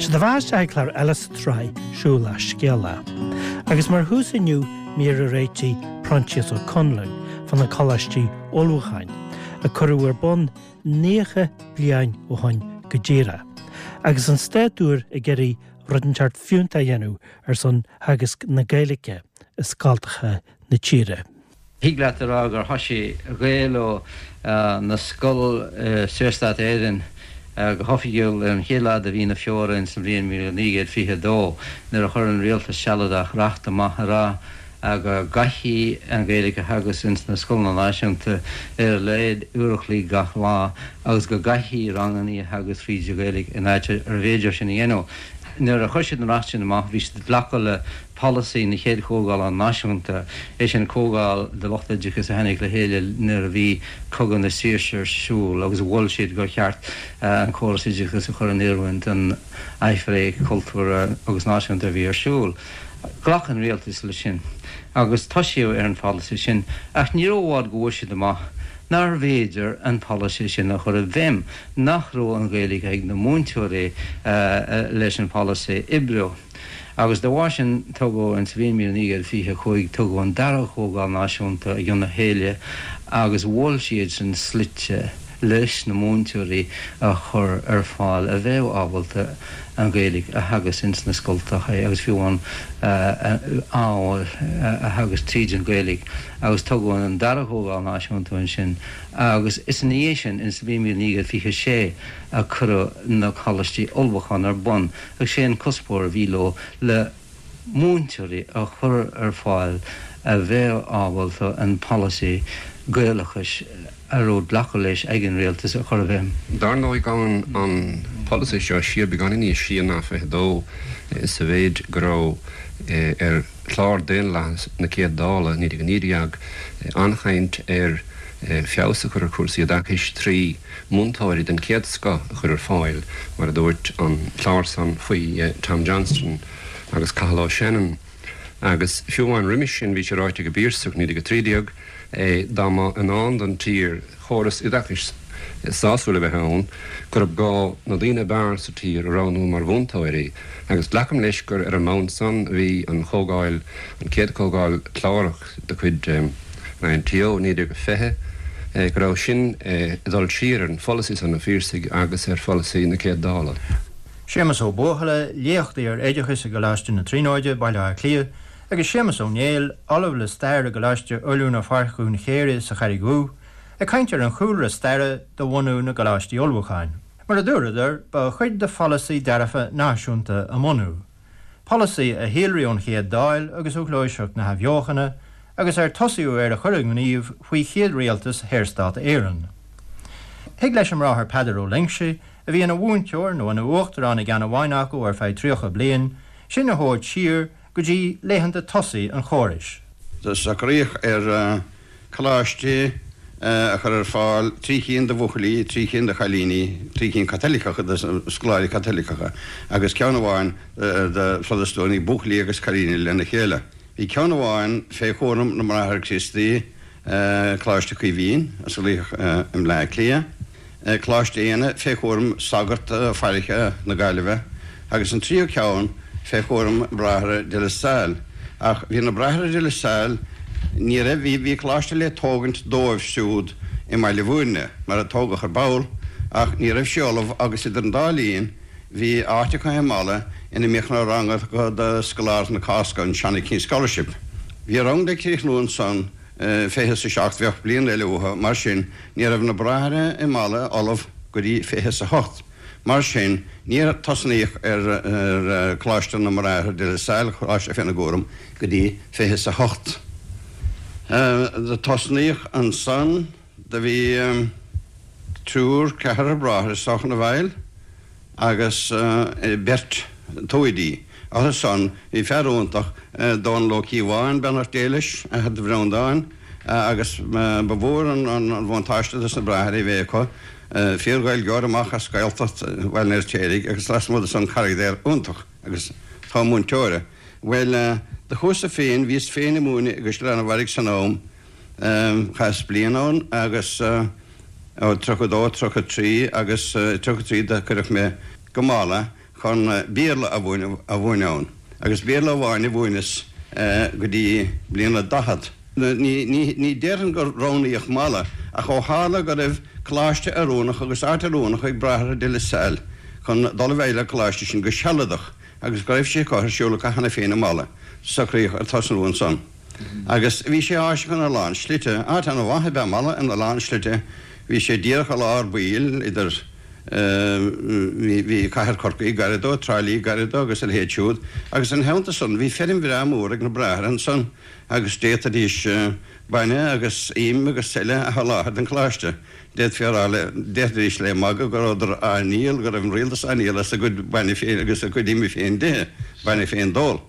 Sé do bheatha isteach ag clár eile sa tsraith Siúl le Scéala. Agus mar thús inniu mír a réitigh Proinsias Ó Conluain fá na Coláistí Ullmhúcháin, a cuireadh ar bun 90 bliain ó shoin go díreach, agus an stát úr ag iarraidh rud inteacht fiúntach a dhéanamh ar son theagasc na Gaeilge i scoltacha na tíre. Thig leat a rá gur thoisigh Gaelú na scol i Saorstát Éireann go hoifigiúil ar an chéad lá de mhí na Feabhra ins an bhliain 1922 nuair a chuir an Rialtas Sealadach reacht amach a rá go gcaithfí an Ghaeilge a theagasc ins na scoileanna náisiúnta ar a laghad uair a chloig gach lá agus go gcaithfí rangannaí a theagasc fríd an Ghaeilge in áit arbh fhéidir sin a dhéanamh. Nuair a chuir siad an reacht sin amach bhí siad ag glacadh le polasaí na chéad Chomhdhála Náisiúnta, é sin comhdháil de lucht oideachais a tháinig le chéile nuair a bhí Cogadh na Saoirse ar siúl agus mhol siad gur cheart an córas oideachais a chur in oiriúint don aimhréidh chultúrtha agus náisiúnta a bhí ar siúl. Ghlac an rialtas leis sin agus toisíodh ar an pholasaí sin ach ní raibh i bhfad go bhfuair siad amach nárbh fhéidir an polasaí sin a chur i bhfeidhm, nach raibh an Ghaeilge ag na múinteoirí leis an pholasaí a oibriú. Agus dá bharr sin tugadh, in sa bhliain 1925, tugadh an dara Comhdháil Náisiúnta i gcionn a chéile agus mhol siadsan slite leis na múinteoirí a chur ar fáil a bheadh ábalta an Ghaeilge a theagasc ins na scoltacha agus fiú amháin ábhair a theagasc tríd an Ghaeilge. Agus tugadh an dara Comhdháil Náisiúnta ansin agus is ina dhiaidh sin, in sa bhliain 1926, a cuireadh na Coláistí Ullmhúcháin ar bun. Agus sé an cuspóir a bhí leo le múinteoirí a chur ar fáil a bheadh ábalta an polasaí Gaelachais a raibh glactha leis ag an rialtas a chur i bhfeidhm. Dar ndóigh gabhann an polasaí seo siar beagáinín níos sia ná 22 sa mhéid go raibh ar chlár Daonlathas na Céad Dála 1919 an-chaint ar feabhas a chur ar chúrsaí oideachais trí múinteoirí den chéad scoth a chur ar fáil, mar a dúirt an clár san faoi Tom Johnston agus Cathal O'Shannon. Agus fiú amháin roimis sin bhí sé ráite ag an bPiarsach, 1913, dá mba i ndán don tír chóras oideachais sásúil a bheith ann, gurb gá na daoine ab fhearr sa tír a roghnú mar mhúinteoirí. Agus glacaim leis gur ar an mbonn san a bhí an chomhdháil, an chéad chomhdháil chlárach, de chuid an INTO, 1920, go raibh sin ag dul siar ar an pholasaí san an Phiarsaigh agus ar pholasaí na Céad Dála. Séamus Ó Buachalla, léachtaí ar oideachas i gColáiste na Tríonóide, Baile Átha Cliath, agus Séamus Ó Néill, Ollamh le Stair i gColáiste Oiliúna Pháirc Dhún Chéire sa Charraig Dhubh, ag caint ar an chúlra staire do bhunú na gColáistí Ullmhúcháin. Mar a dúradar, ba chuid de pholasaí dearfa náisiúnta a mbunú. Polasaí a shíolraigh ón Chéad Dáil agus ó Ghluaiseacht na hAthbheochana agus ar tosaíodh air a chur i ngníomh faoi chéad rialtas Shaorstát Éireann. Thig leis an mBráthair Peadar Ó Loingsigh, a bhí ina mhúinteoir nó ina uachtarán i gceann amháin acu ar feadh 30 bliain, sinn a thabhairt siar go dtí laethanta tosaigh an chórais. Socraíodh ar Coláistí a chur ar fáil, 3 chinn do bhuachaillí, 3 chinn do chailíní, 3 chinn Caitiliceacha do scoláirí Caitiliceacha agus ceann amháin do Phrotastúnaigh, buachaillí agus cailíní lena chéile. Bhí ceann amháin fé chúram na mBráithre Críostaí, Coláiste Chaoimhín, a osclaíodh i mBleá Cliath. Coláiste Éanna fé chúram sagart fairche na Gaillimhe agus an tríú ceann fé chúram Bráithre de La Salle. Ach bhí na Bráithre de La Salle, ní raibh, bhí, bhí coláiste le tógaint dóibh siúd i mBaile Bhúirne, mar a tógadh ar ball, ach ní raibh sé ullamh agus idir an dá linn bhí áit acu i Mala ina mbíodh na ranga do scoláirí na Cásca, an Johnny King Scholarship. Bhí rang le críochnú ansan fiche is a 7, bheadh bliain eile uathu, mar sin ní raibh na Bráithre i Mala ullamh go dtí 28. Mar sin níor tosnaíodh ar Choláiste na mBráithre de La Salle, coláiste féna gcúram, go dtí 28. Do tosnaíodh ansan, do bhí triúr, ceathrar bráithre is dócha ina bhfeighil agus beirt toimhdí. Orthu san bhí fear iontach, Dónal Ó Cíobháin, beannacht Dé leis, athair do Bhreandáin, agus ba mhór an bhuntáiste dos na Bráithre é bheith acu, fíor-Ghaeilgeoir amach as Gaeltacht Bhaile an Fheirtéaraigh agus lasmuigh de san carachtar iontach agus togha múinteora. Bhuel, do chuas-sa féin, bhíos féin ag múineadh i gCaisleán an Bharraigh san am, chaitheas bliain ann agus ó 32, 33 agus 33 do cuireadh mé go Mala. chun Béarla a mhúineadh ann, agus Béarla amháin a mhúineas go dtí bliain a 40. Ní déarfainn gur roghnaíodh Mala, ach ó tharla go raibh coláiste oiriúnach agus áit oiriúnach ag Bráithre de La Salle chun dul i bhfeighil an choláiste sin go sealadach agus go raibh sé curtha ar siúl acu cheana féin i Mala, socraíodh ar tosnú ansan. Agus bhí sé áiseach ina lán slite. Áit an-mhaith ab ea Mala ina lán slite. Bhí sé díreach i lár baill idir, bhí cathair Chorcaí gairid dó, Trá Lí gairid dó agus a leithéid siúd. Agus ina theannta san bhí feirm bhreá mór ag na Bráithre ansan agus d'fhéadfaidís bainne agus im agus eile a sholáthar don choláiste. D'fhéadfaí a rá le, d'fhéadfaidís le magadh go rabhadar á ndíol, go raibh an rialtas á ndíol as a gcuid bainne féin agus a gcuid ime féin d'ithe, bainne féin d'ól.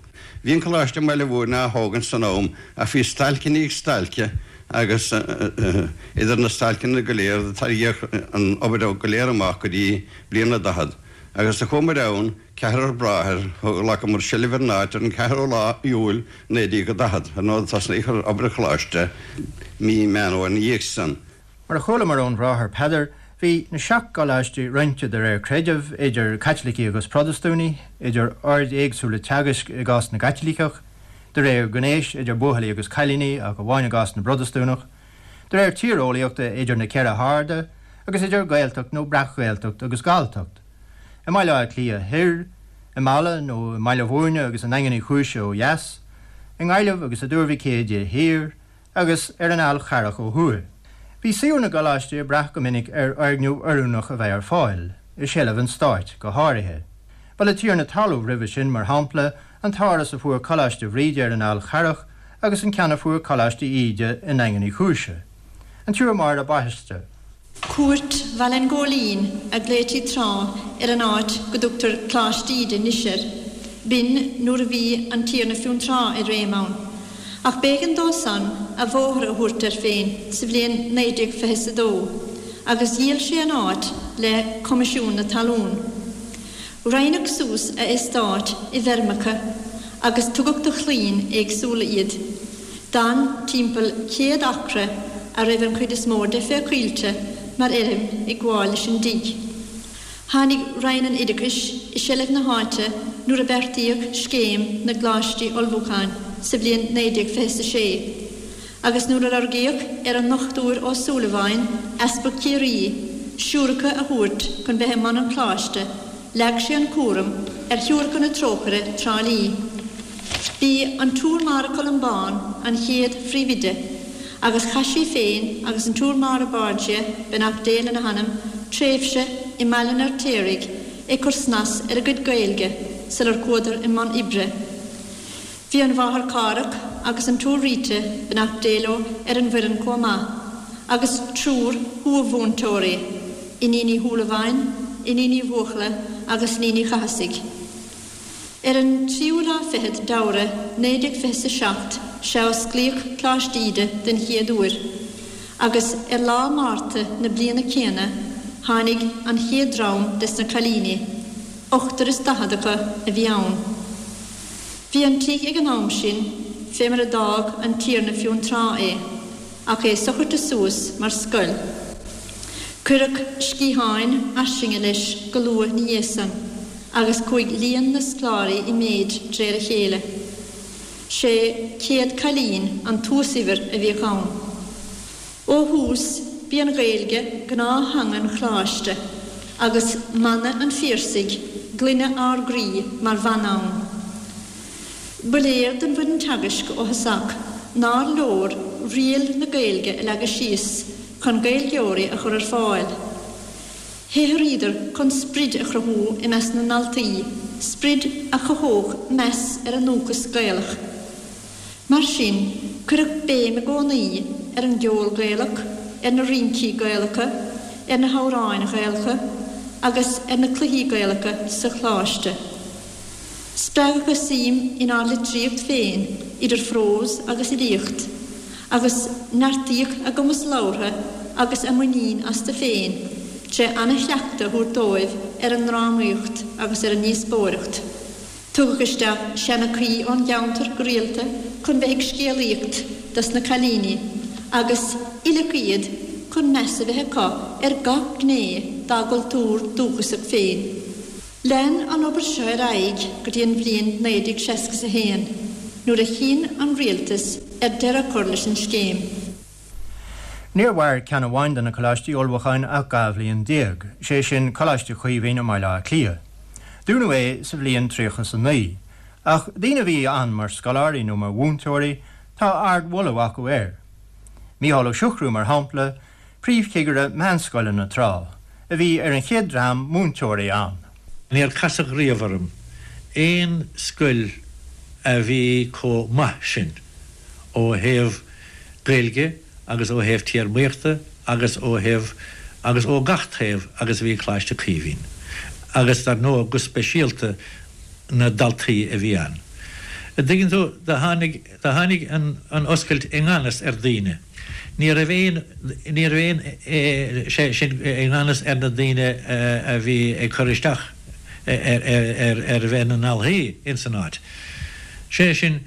Bhí an Coláiste i mBaile Mhúirne á thógaint san am ach bhí stailc i ndiaidh stailce agus idir na stailceanna go léir tarraingíodh an obair go léir amach go dtí bliain a 40 agus do chuamair ann, ceathrar bráthair, ghlacamar seilbh ar an áit ar an 4ú lá Iúil 1940. Ar ndóigh tosnaíodh ar obair an Choláiste mí Meán Fhómhair ina dhiaidh san. Mar a chualamar ón Bhráthair Peadar, bhí na seacht gcoláistí roinnte de réir creidimh idir Caitlicigh agus Protastúnaigh, idir oird éagsúla teagaisc i gcás na gCaitliceach, de réir gnéis idir buachaillí agus cailíní ach amháin i gcás na bProtastúnach, de réir tíreolaíochta idir na ceithre harda, agus idir Gaeltacht nó Breac-Ghaeltacht agus Galltacht, i mBaile Átha Cliath thoir, i Mala nó i mBaile Mhúirne agus i nDaingean Uí Chúis ó dheas, i nGaillimh agus i dTuar Mhic Éadaigh thiar, agus ar an Fhál Charrach ó thuaidh. Bhí suíomh na gcoláistí ag brath go minic ar fhoirgneamh oiriúnach a bheith ar fáil, i seilbh an stáit go háirithe. Ba le tiarna talún roimhe sin, mar shampla, an t-áras a fuair Coláiste Bhríde ar an Fhál Charrach agus an ceann a fuair Coláiste Íde i nDaingean Uí Chúise. An tSiúr Máire Baiste. Cúirt Bhaile an Ghóilín a ghlaoití tráth ar an áit go dtugtar Coláiste Íde anois air. B'in nuair a bhí an Tiarna Fionntrá i réim ann. Ach b'éigean dó san a bhóthar a thabhairt air féin sa bhliain 1922 agus dhíol sé an áit le Coimisiún na Talún. Roinneadh suas a eastát i bhfeirmeacha agus tugadh do chlainn éagsúla iad. D'fhan timpeall 100 acra a raibh an chuid is mó de fé choillte mar fheirm ag gabháil leis an dtigh. Tháinig Roinn an Oideachais i seilbh na háite nuair a beartaíodh Scéim na gColáistí Ullmhúcháin sa bhliain 1926 agus nuair a lorgaíodh ar an nDochtúir Ó Súilleabháin, Easpag Chiarraí, siúracha a thabhairt chun bheith i mbun an Choláiste, Leag sé an cúram ar Shiúracha na Trócaire, Trá Lí. B'í an tSiúr Máire Columbán an chéad phríomhoide agus chaith sí féin agus an tSiúr Máire Borgia, beannacht Dé lena hanam, tréimhse i mBaile an Fheirtéaraigh ag cur snas ar a gcuid Gaeilge sular chuadar i mbun oibre. Bhí an Mháthair Cárthach agus an tSiúr Rita, beannacht Dé leo, ar an bhfoireann chomh maith, agus triúr thuamhúinteoirí, Iníon Uí Shúilleabháin, Iníon Uí Bhuachalla agus Iníon Uí Chathasaigh. Ar an tríú lá fichead d'Fheabhra 1927 sea a osclaíodh Coláiste Íde den chéad uair, agus ar lá Márta na bliana céanna tháinig an chéad dream des na cailíní, ochtar is daichead acu a bhí ann. Bhí an tigh ag an am sin fé mar a d'fhág an Tiarna Fionntrá é, ach é socraithe suas mar scoil. Cuireadh sciatháin fhairsinge leis go luath 'na dhiaidh san agus chuaigh líon na scoláirí i méid d'réir a chéile. 600 cailín an t-uasuimhir a bhíodh ann. Ó thús, b'í an Ghaeilge gnáth-theanga an Choláiste agus mana an Phiarsaigh, 'Glaine ár gcroí' mar mhana ann. Ba léir don bhfoireann teagaisc ó thosach nár leor riail na Gaeilge a leagadh síos chun Gaeilgeoirí a chur ar fáil. Shaothraíodar chun sprid a chruthú i measc na ndaltaí, sprid a chothódh meas ar a ndúchas Gaelach. Mar sin, cuireadh béim i gcónaí ar an gceol Gaelach, ar na rincí Gaelacha, ar na hamhráin Ghaelacha agus ar na cluichí Gaelacha sa Choláiste. Spreagadh a suim inár litríocht féin, idir phrós agus fhilíocht, agus neartaíodh a gcumas labhartha agus a muinín astu féin tré ana-chleachtadh a thabhairt dóibh ar an ndrámaíocht agus ar an ndíospóireacht. Tugadh isteach seanchaí ón gceantar go rialta chun bheith ag scéalaíocht dos na cailíní agus oileadh iad chun meas a bheith acu ar gach gné dá gcultúr dúchasach féin. Lean an obair seo ar aghaidh go dtí an bhliain 1961, nuair a chinn an Rialtas ar deireadh a chur leis an scéim. Níor mhair ceann amháin de na coláistí ullmhúcháin ach 12 bhliain, sé sin Coláiste Chaoimhín i mBaile Átha Cliath. Dúnadh é sa bhliain 39. Ach daoine a bhí ann mar scoláirí nó mar mhúinteoirí, tá ardmholadh acu air. Mícheál Ó Siochrú, mar shampla, príomhchigire meánscoileanna tráth, a bhí ar an chéad dream múinteoirí ann. Níor casadh riamh orm aon scoil a bhí chomh maith sin ó thaobh Gaeilge agus ó thaobh téarmaíochta agus ó thaobh agus ó gach taobh agus a bhí Coláiste Caoimhín agus dar ndóigh go speisialta na daltaí a bhí ann. An dtuigeann tú, do tháinig, do tháinig an, an oscailt i ngan fhios ar daoine. Ní raibh aon, ní raibh aon, sé sin, i ngan fhios ar na daoine a bhí ag cur isteach ar, ar, ar, ar bheith ina ndalthaí ins an áit. Sé sin,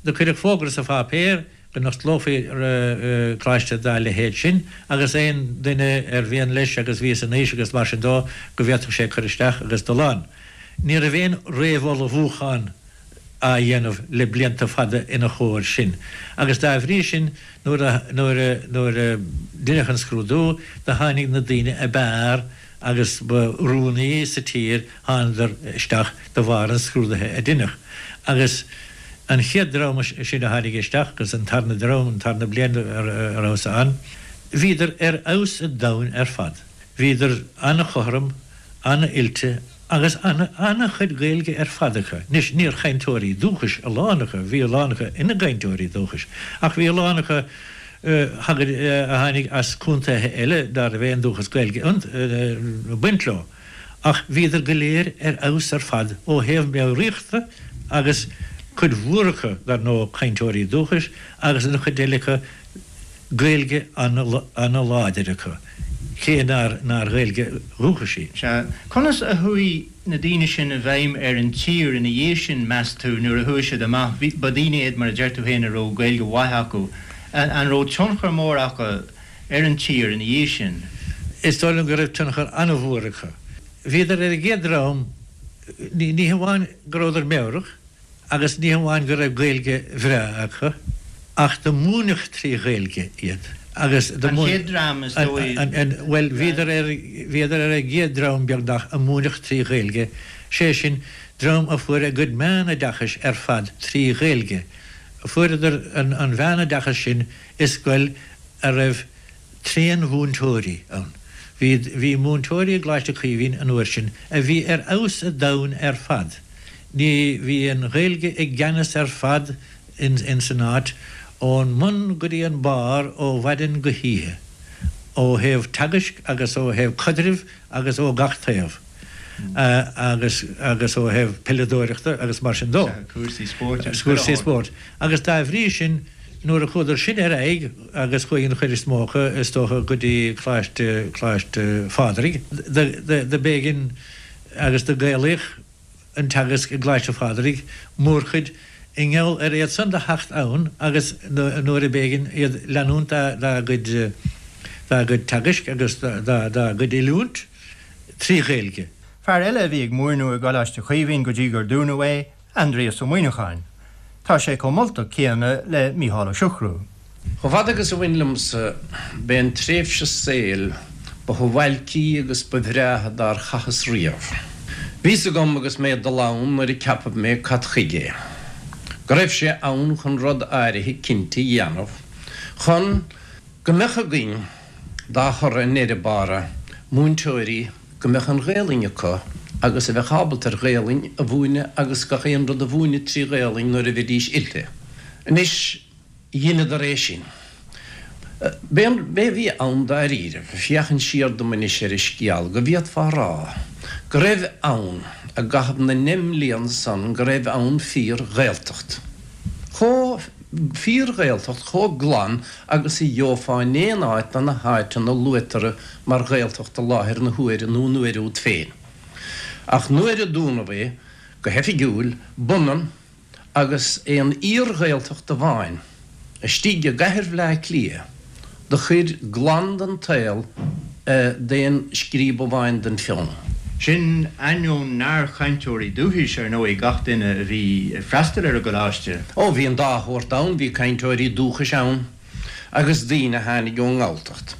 do cuireadh fógra sa pháipéar go n-osclófaí coláiste dá leithéid sin agus aon duine ar mhian leis agus bhí san aois agus mar sin dó go bhféadfadh sé cur isteach agus dul ann. Ní raibh aon réamhullmhúchán á dhéanamh le blianta fada ina chomhair sin agus dá bhrí sin nuair a nuair a nuair a deineadh an scrúdú do tháinig na daoine ab fhearr agus ba oiriúnaí sa tír thánadar isteach de bharr an scrúdaithe a deineadh agus an chéad dream sin a tháinig isteach agus an tarna dream an tarna bliain a rabhas ann bhíodar ar fheabhas an domhain ar fad. Bhíodar an-chothrom, an-oilte agus an-chuid Gaeilge ar fad acu. Anois, níor chainteoirí dúchais a lán acu, bhí a lán acu ina gcainteoirí dúchais, ach bhí a lán acu a tháinig as contaetha eile ná raibh aon dúchas Gaeilge ag baint leo. Ach bhíodar go léir ar fheabhas ar fad ó thaobh meabhraíochta agus cuid mhór acu, dar ndóigh, cainteoirí dúchais agus an chuid eile acu, Gaeilge ana-láidir acu, cé nár nár Ghaeilge dhúchais í. Sea. Conas a chuaigh na daoine sin i bhfeidhm ar an tír ina dhiaidh sin, meas tú, nuair a chuaigh siad amach? Bhí, ba daoine iad, mar a deir tú féin, a raibh Gaeilge mhaith acu. An raibh tionchar mór acu ar an tír ina dhiaidh sin? Is dóigh liom go raibh tionchar ana-mhór acu. Bhíodar ar an gcéad dream, ní hamháin go rabhadar meabhrach, Agus ní hamháin go raibh Gaeilge bhreá acu, ach do múineadh trí Ghaeilge iad. Agus do An chéad dream, is dóigh. Bhuel, bhíodar ar, bhíodar ar an gcéad dream, beagnach, a múineadh trí Ghaeilge, sé sin, dream a fuair a gcuid meánoideachais ar fad trí Ghaeilge. Fuaireadar an mheánoideachas sin i scoil a raibh tréanmhúinteoirí ann. Bhí, bhí múinteoirí i gColáiste Chaoimhín an uair sin a bhí ar fheabhas a' domhain ar fad. Ní, bhí an Ghaeilge i gceannas ar fad in, ins an áit, ón mbun go dtí an barr ó mhaidin go hoíche, ó thaobh teagaisc agus ó thaobh caidrimh agus ó gach taobh, agus, agus ó thaobh peileadóireachta agus mar sin dó. Cúrsaí spóirt agus Cúrsaí spóirt. Agus dá bhrí sin, nuair a chuadar sin ar aghaidh, agus chuaigh an chuid is mó acu, is dócha, go dtí Coláiste, Coláiste Phádraig, do, do, do b'éigean agus do gaelaíodh an teagasc i gColáiste Phádraig, mórchuid, i ngeall ar iad san do theacht ann agus nuair a b'éigean iad leanúint dá, dá gcuid, dá gcuid teagaisc agus dá, dá gcuid oiliúint trí Ghaeilge. Fear eile a bhí ag múineadh i gColáiste Chaoimhín go dtí gur dúnadh é, Aindrias Ó Muimhneacháin. Tá sé chomh moltach céanna le Mícheál Ó Siochrú. Chomh fada agus a bhain liomsa, b'é an tréimhse saoil ba shuáilcí agus ba bhreátha dár chaitheas riamh. Bhí's agam agus mé ag dul ann nuair a ceapadh mé cad chuige é, go raibh sé ann chun rud áirithe cinnte a dhéanamh, chun go mbeadh againn, dá thoradh i ndeireadh bára, múinteoirí go mbeadh an Ghaelainn acu agus a bheadh ábalta ar Ghaelainn a mhúineadh agus gach aon rud a mhúineadh trí Ghaelainn nuair a bheidís oilte. Anois, dheineadar é sin. B'é an, b'é a bhí ann dáiríribh, féachaint siar dom anois ar an scéal, go bhféadfá a rá go raibh ann, i gcaitheamh na ndeich mblian san, go raibh ann fíor-Ghaeltacht. Chomh, fíor-Ghaeltacht chomh glan agus a gheofá in aon áit de na háiteanna luaitear mar Ghaeltacht i láthair na huaire nó an uair úd féin. Ach nuair a dúnadh é go hoifigiúil, b'ionann agus é an fhíor-Ghaeltacht amháin istigh i gcathair Bhleá Cliath do chuir glan den tsaol d'aon scríob amháin den pheann. Sin ainneoin nár chainteoirí dúchais, ar ndóigh, gach duine a bhí ag freastal ar an gcoláiste. Ó, bhí an dá shórt ann, bhí cainteoirí dúchais ann agus daoine a tháinig ón nGalltacht.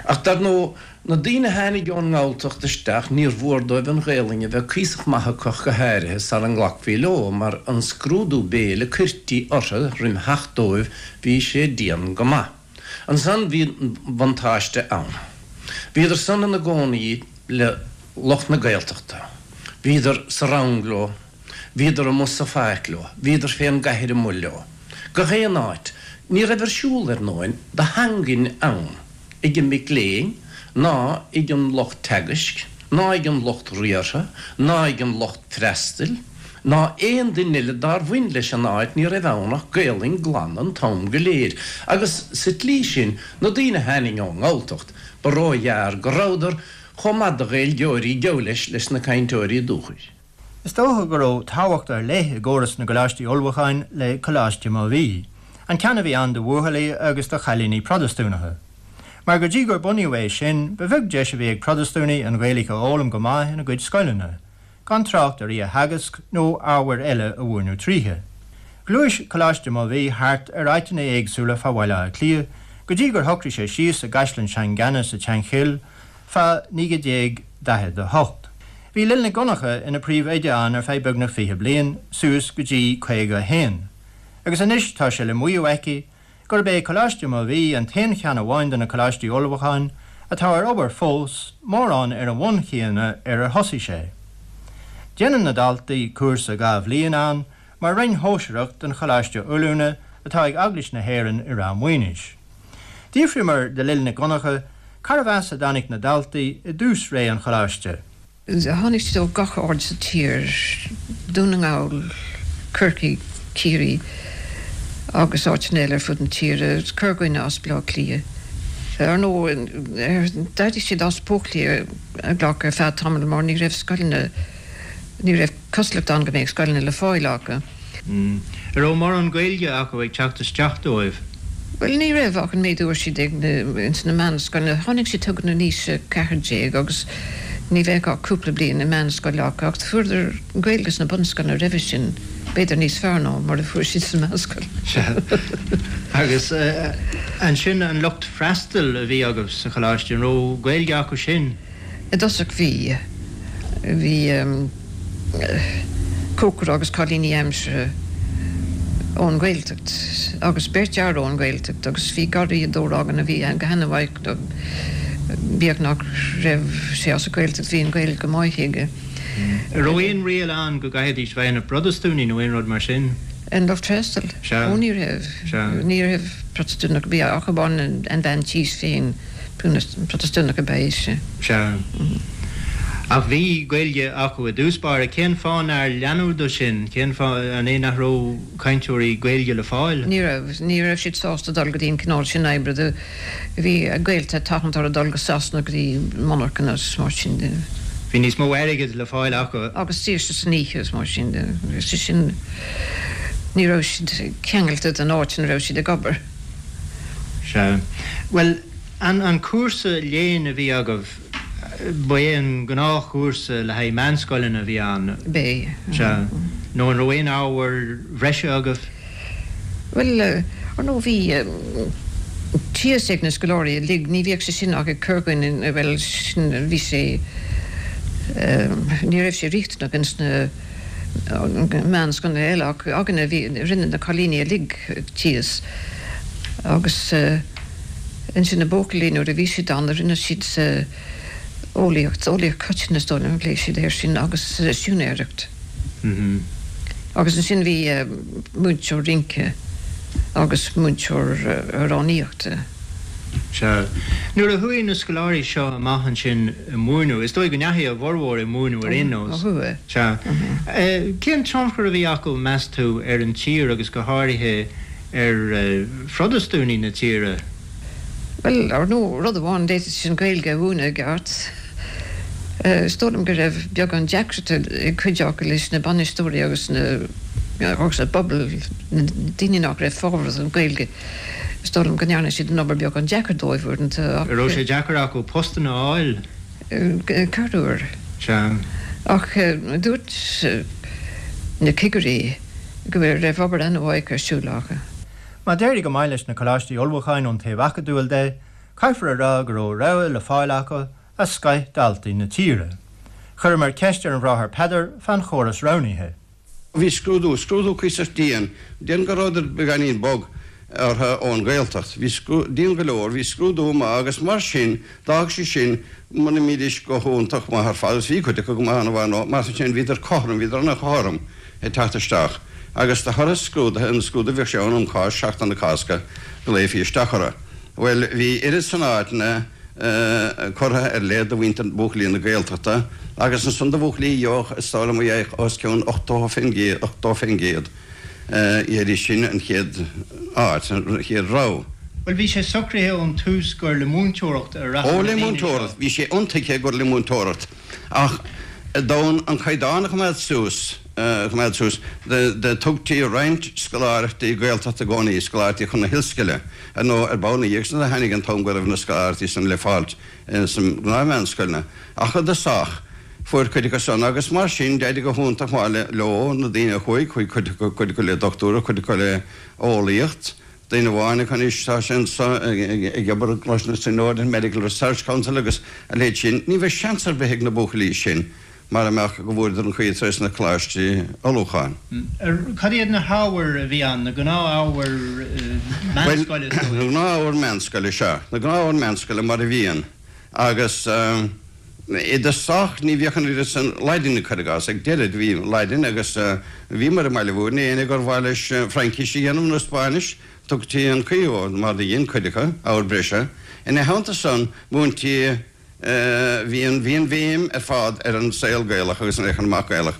Ach dar ndóigh, na daoine a tháinig ón nGalltacht isteach, níor mhór dóibh an Ghaelainn a bheith cuíosach maith acu ach go háirithe sara nglacfaí leo, mar an scrúdú béil a cuirtí orthu roim theacht dóibh, bhí sé dian go maith. Ansan bhí buntáiste ann. Bhíodar san ina gcónaí le lucht na Gaeltachta. Bhíodar sa rang leo. Bhíodar amuigh sa pháirc leo. Bhíodar fén gcathair amuigh leo. Gach aon áit. Ní raibh ar siúl, ar ndóin, de theangain ann ag an mic léinn ná ag an lucht teagaisc ná ag an lucht riartha ná ag an lucht freastail ná aon duine eile dár bhain leis an áit, ní raibh ann ach Gaelainn glan an t-am go léir. Agus sa tslí sin, na daoine a tháining ón nGalltacht, ba róghearr go rabhadar chomh maith de Ghaeilgeoirí, geall leis, leis na cainteoirí dúchais. Is dócha go raibh tábhacht ar leith i gcóras na gcoláistí ullmhúcháin le Coláiste Mobhí, an ceann a bhí ann do bhuachaillí agus do chailíní Protastúnacha. Mar go dtí gur bunaíodh é sin, ba bheag deis a bhí ag Protastúnaigh an Ghaeilge a fhoghlaim go maith ina gcuid scoileanna, gan trácht ar í a theagasc nó ábhair eile a mhúineadh tríthi. Ghluais Coláiste Mobhí thart ar áiteanna éagsúla fá Bhaile Átha Cliath go dtí gur shocraigh sé síos i gCaisleán Sheangánaí sa tSeanchill fá 1948. Bhí Lil Nic Dhonncha ina príomhoide ann ar feadh beagnach 20 bliain, suas go dtí 51, agus anois tá sé le maíomh aici gurb é Coláiste Mobhí an t-aon cheann amháin de na coláistí ullmhúcháin atá ar obair fós, mórán ar an bhonn chéanna ar ar thosaigh sé. Déanann na daltaí cúrsa 2 bhliain ann mar roinn shóisearach den Choláiste Oiliúna atá ag Eaglais na hÉireann i Ráth Maoinis. D'fhiafraíomar de Lil Nic Dhonncha carbh as a dtáinig na daltaí i dtús ré an Choláiste. Tháinig siad ó gach aird sa tír, Dún na nGall, Corcaigh, Ciarraí agus áiteanna eile ar fud na tíre, corrdhuine as Baile Átha Cliath. Ar ndóigh, d'éirigh siad as buachaillí a ghlacadh ar feadh tamaill mar ní raibh scoileanna, ní raibh cosúlacht ann go mbeadh scoileanna le fáil acu. An raibh mórán Gaeilge acu ag teacht isteach dóibh? Bhuel, ní raibh ach an méid a fuair siad ag na, ins na meánscoileanna. Tháinig siad chugainn in aois a 14 agus ní bheadh ach cúpla bliain i meánscoil acu ach fuaireadar Gaeilge sna bunscoileanna roimhe sin, b'fhéidir níos fearr ná mar a fuair siad sa mheánscoil. Sea. Agus ansin an lucht freastail a bhí agaibh sa choláiste, an raibh Gaeilge acu sin? I dtosach bhí. Bhí cócaire agus cailíní aimsire ón Ghaeltacht agus beirt fhear ón Ghaeltacht agus bhí garraíodóir againn a bhí go han-mhaith, bíodh nach raibh sé as an Ghaeltacht bhí an Ghaeilge go maith aige. An raibh aon riail ann go gcaithfidís bheith ina bProtastúnaigh nó aon rud mar sin? An lucht freastail? Sea. Ó ní raibh. Sea. Ní raibh Protastúnach ar bith ach amháin an bhean tís féin. Protastúnach ab ea ise. Sea. Ach bhí Gaeilge acu i dtús báire. Cén fáth nár leanadh de sin? Cén fáth, an é nach raibh cainteoirí Gaeilge le fáil? Ní raibh. Ní raibh siad sásta dul go dtí an cineál sin oibre. Do bhí a gaolta ag tathant orthu dul go Sasana go dtí monarchana agus mar sin de. Bhí níos mó airgid le fáil acu. Agus saoirse san oíche agus mar sin de. Sé sin, ní raibh siad ceangailte den áit ina raibh siad ag obair. Sea. Bhuel, an, an cúrsa léinn a bhí agaibh, ba é an gnáthchúrsa le haghaidh meánscoileanna a bhí ann? B'é. Sea. Nó an raibh aon ábhair bhreise agaibh? Bhuel, ar ndóigh bhí tíos ag na scoláirí uilig, ní bhíodh sé sin ach ag corrdhuine, bhuel, sin, bhí sé, ní raibh sé riachtanach ins na meánscoileanna eile ach againne bhí, rinne na cailíní uilig tíos agus ansin na buachaillí nuair a bhí siad ann rinne siad eolaíocht, eolaíocht choiteann is dóigh liom a phléigh siad air sin agus siúinéireacht. Agus ansin bhí múinteoir rince agus múinteoir amhránaíochta. Sea. Nuair a chuaigh na scoláirí seo amach ansin ag múineadh, is dóigh go ndeachaigh a bhformhór ag múineadh ar aon nós. Ó chuaigh. Sea. Cén tionchar a bhí acu, meas tú, ar an tír agus go háirithe ar Phrotastúnaigh na tíre? Bhuel, ar ndóigh, rud amháin, d'fhéadfaidís an Ghaeilge a mhúineadh i gceart. Is dóigh liom go raibh beagán deacrachta ag cuid acu leis na bainisteoirí agus na, agus an pobal, na daoine nach raibh fábharach don Ghaeilge. Is dóigh liom go ndearna siad an obair beagán deacair dóibh uaireanta ach. An raibh sé deacair acu postanna a fháil? Corruair. Sea. Ach dúirt na cigirí go raibh obair an-mhaith ar siúl acu. Má d'éirigh go maith leis na coláistí ullmhúcháin ón taobh acadúil de, caithfear a rá go raibh rogha le fáil acu as scoith daltaí na tíre. Chuireamar ceist ar an Bhráthair Peadar fán chóras roghnaithe. Bhí scrúdú, scrúdú cuíosach dian, déarfainn go rabhadar beagáinín bog orthu ón Ghaeltacht. Bhí scrú, dian go leor, bhí scrúdú maith agus mar sin, d'fhág sé sin, muna mbídís go hiontach maith ar fad, agus bhí cuid acu go maith an-mhaith nó mar sin, bhíodar cothrom, bhíodar an-chothrom ag teacht isteach. Agus de thoradh scrúdaithe, an scrúdú bhíodh sé ann um Cháisc, Seachtain na Cásca, ghlaofaí isteach orthu. Bhuel, bhí oiread san áiteanna, curtha ar leith do mhuintir buachaillí na Gaeltachta agus ansan do bhuachaillí a gheobhadh is dóigh liom a gheobhadh os cionn 80%, 80%, gheibhidís sin an chéad áit, an chéad rogha. Bhuel, bhí sé socraithe ón tús gur le múinteoireacht a rachadh Ó, na le daoine seo. múinteoireacht, bhí sé intuigthe gur le múinteoireacht ach d'fhonn an caighdeán a choimeád suas, a choimeád suas, do tugtaí roinnt scoláireachtaí Gaeltachta i gcónaí, scoláireachtaí chun na hollscoile. Ar ndóigh, ar ball ina dhiaidh sin do tháinig an t-am go raibh na scoláireachtaí san le fáilt sna gnáth-mheánscoileanna. Ach i dtosach, fuair cuid acu san, agus mar sin, d'éirigh go hiontach maith leo, na daoine a chuaigh, chuaigh cuid acu, cuid acu le dochtúireacht, cuid acu le eolaíocht. Duine amháin acu anois, tá sé anso ag obair i gColáiste na Tríonóide, an Medical Research Council agus a leithéid sin. Ní bheadh seans ar bith ag na buachaillí sin mara mbeadh go bhfuaireadar an chaoi trés na coláistí ullmhúcháin. Cad iad na hábhair a bhí ann, na gnáth-ábhair meánscoile is dóigh? Na gnáth-ábhair meánscoile, sea. Na gnáth-ábhair meánscoile mar a bhíonn. Agus i dtosach ní bhíodh an oiread san Laidine, cuir i gcás. Ag deireadh bhí Laidin agus bhíomar i mBaile Bhúirne, éinne gur mhaith leis Fraincis a dhéanamh nó Spáinnis, tugtaí an chaoi dhó, mar do dhein cuid acu, ábhar breise. Ina theannta san, múintí. Bhí an bhí an bhéim ar fad ar an saol Gaelach agus an féachaint amach Gaelach.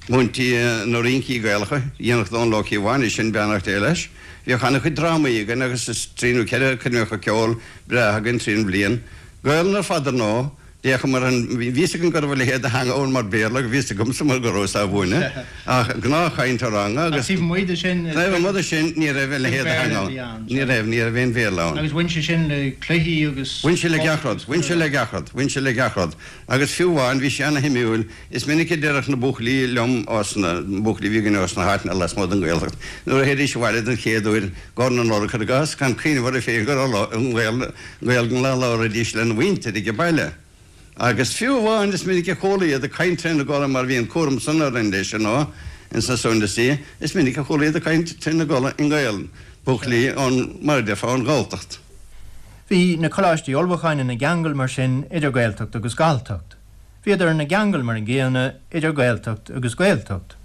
Múintí na rincí Gaelacha, dhéanfadh Dónal Ó Cíobháin é sin, beannacht Dé leis. Bhíodh an-chuid drámaí againn agus is trí nó ceithre coirmeacha ceoil breátha againn tríd an bhliain. Gaelainn ar fad ar ndóigh. D'fhéachamar an, bhí fhios againn go raibh a leithéid de theanga ann mar Béarla, bhí fhios agamsa mar go rabhas á mhúineadh, ach gnáthchaint sa ranga agus. Ach taobh amuigh de sin. Taobh amuigh de sin ní raibh a leithéid de theanga ann. Ní raibh, ní raibh aon Bhéarla ann. Agus bhain sé sin le cluichí agus. Bhain sé le gach rud, bhain sé le gach rud, bhain sé le gach rud. Agus fiú amháin, bhí sé ana-shuimiúil, is minic a déarfadh na buachaillí liom ós na buachaillí a bhí againn ós na háiteanna lasmuigh den Ghaeltacht, nuair a théidís abhaile den chéad uair, gcomhair na Nollag, cuir i gcás, gan cuimhneamh orthu féin go raibh an Ghaeilge á labhraídís lena mhuintir ag baile. Agus fiú amháin is minic a chuala iad ag caint trína gcodladh mar bhí an cúram san orainn leis ar ndóigh ins na Sunday Sea, is minic a chuala iad ag caint trína gcodladh i nGaelainn, buachaillí ón, mar a déarfá, ón Ghalltacht. Bhí na coláistí ullmhúcháin ina gceangal mar sin idir Gaeltacht agus Galltacht. Bhíodar ina gceangal mar an gcéanna idir Gaeltacht agus Gaeltacht.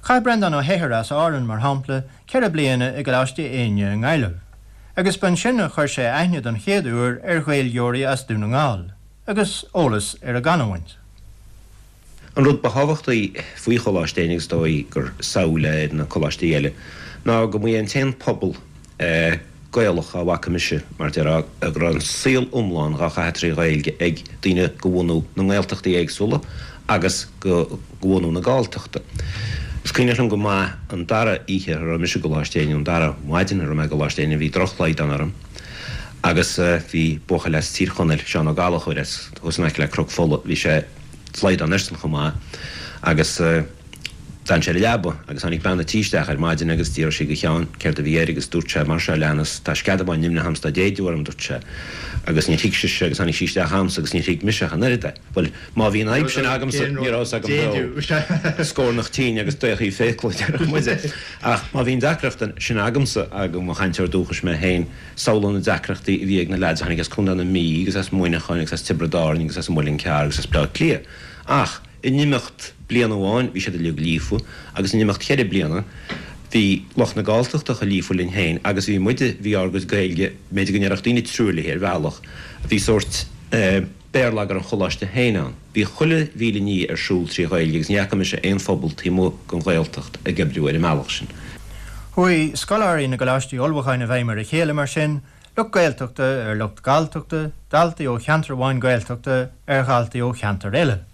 Chaith Breandán Ó hEithir as Árainn, mar shampla, 4 bliana i gColáiste Éinne i nGaillimh, agus b'ansin a chuir sé aithne don chéad uair ar Ghaeilgeoirí as Dún na nGall, agus eolas ar a gcanúint. An rud ba thábhachtaí faoi Choláiste Éinne, agus is dóigh gur samhail é ar na coláistí eile, ná go mba é an t-aon pobal Gaelach a bhfaca mise, mar déarfá, go raibh an saol iomlán dhá chaitheamh trí Ghaeilge ag daoine de bhunú na nGaeltachtaí éagsúla agus de bhunú na Galltachta. Is cuimhneach liom go maith an dara oíche a raibh mise i gColáiste Éinne, an dara maidin a raibh mé i gColáiste Éinne, bhí drochshlaghdán orm agus bhí buachaill as Tír Chonaill, Seán Ó Gallchóir, as thuas in aice le Cnoc Fola, bhí sé slaghdán airsean chomh maith agus d'fhan sé ar an leaba agus tháinig bean a' tí isteach ar maidin agus d'fhiafraigh sí de Sheán céard a bhí air agus dúirt sé mar seo a leanas, tá sceadamán nimhneach a'm 's tá déideadh orm, dúirt sé. Agus níor thuig sise agus tháinig sí isteach a'msa agus níor thuig mise ach an oiread é. Bhuel, má bhí an fhadhb sin agamsa, ní raibh fhios agam beo. Scornach tinn agus daochaí fiacla, a déarfadh muide. Ach má bhí an deacracht sin agamsa, agus mo chainteoir dúchais mé féin, samhlaigh na deacrachtaí a bhí ag na leaids a tháinig as Contae na Mí agus as Muineachán agus as Tiobraid Árann agus as an Muileann Cearr agus as Bleá Cliath. Ach in imeacht bliana amháin bhí siad uilig líofa agus in imeacht cheithre bliana bhí lucht na Galltachta chomh líofa linn féin agus bhí muide, bhí ár gcuid Gaeilge, b'fhéidir go ndéarfadh daoine truaillithe ar bhealach, bhí sórt béarlagair an choláiste féin ann. Bhí chuile mhíle ní ar siúl trí Ghaeilge agus ní fhaca mise aon phobal taobh amuigh den Ghaeltacht ag oibriú ar an mbealach sin. Chuaigh scoláirí na gcoláistí ullmhúcháin i bhfeidhm ar a chéile mar sin, lucht Gaeltachta ar lucht Galltachta, daltaí ó cheantar amháin Gaeltachta ar dhaltaí ó cheantar eile.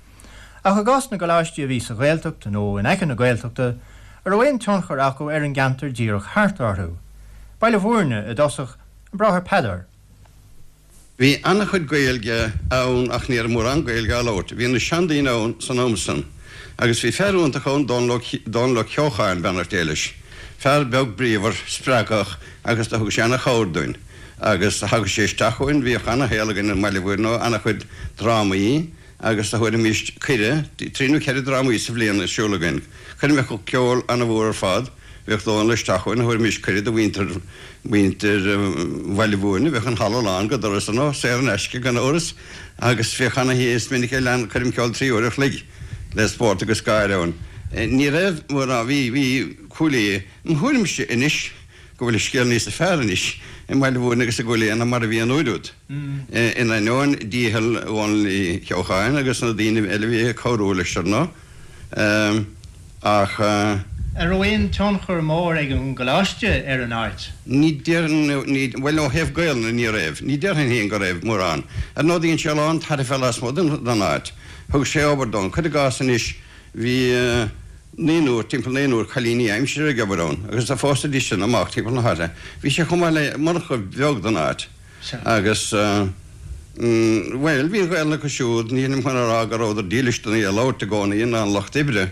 Ach i gcás na gcoláistí a bhí sa Ghaeltacht nó in aice na Gaeltachta, an raibh aon tionchar acu ar an gceantar díreach thart orthu? Baile Bhúirne i dtosach, an Bráthair Peadar. Bhí an-chuid Gaeilge ann ach ní raibh mórán Gaeilge á labhairt. Bhí na seandaoine ann san am san. Agus bhí fear iontach ann, Dónal Ó Ceocháin, beannacht Dé leis. Fear beag bríomhar, spreagthach agus do thug sé an-chabhair dúinn. Agus thagadh sé isteach chugainn, bhíodh an-shaol againn i mBaile Bhuirne, an-chuid drámaí agus do thabharfaimís cuireadh, trí nó cheithre drámaí sa bhliain ar siúl againn. Coirmeacha ceoil an-mhór ar fad. Bhíodh Dónal isteach chugainn, thabharfaimis cuireadh do mhuintir, mhuintir Bhaile Bhúirne, bheadh an halla lán go doras ar ndóigh, saor in aisce gan amhras, agus bhíodh ana-, is minic a lean coirm ceoil 3 uair a chloig le spórt agus gáire ann. Ní raibh mórán, bhí, bhí Cúil Aodha, im thuairimse anois go bhfuil an scéal níosa fearr anois i mBaile Bhúirne agus i gCúil Aodha ná mar a bhí an uair úd, in ainneoin dícheall Dhónaill Uí Cheocháin agus na daoine eile a bhí ag cabhrú leis ar ndóigh. Ach. An raibh aon tionchar mór ag an gcoláiste ar an áit? Ní déarfainn, ní, bhuel ó thaobh Gaelainne ní raibh. Ní déarfainn féin go raibh mórán. Ar ndóigh dhein sé a lán tairbhe lasmuigh den áit. Thug sé obair dóibh. Cuir i gcás anois bhí naonúr, timpeall naonúr cailíní aimsire ag obair ann agus do phósaidís sin amach timpeall na háite. Bhí sé chomh maith le monarcha bheag don áit. Agus, bhuel, bhí an Ghaelainn acu siúd, nílim chun a rá go rabhadar dílis don í a labhairt i gcónaí, ná an lucht oibre,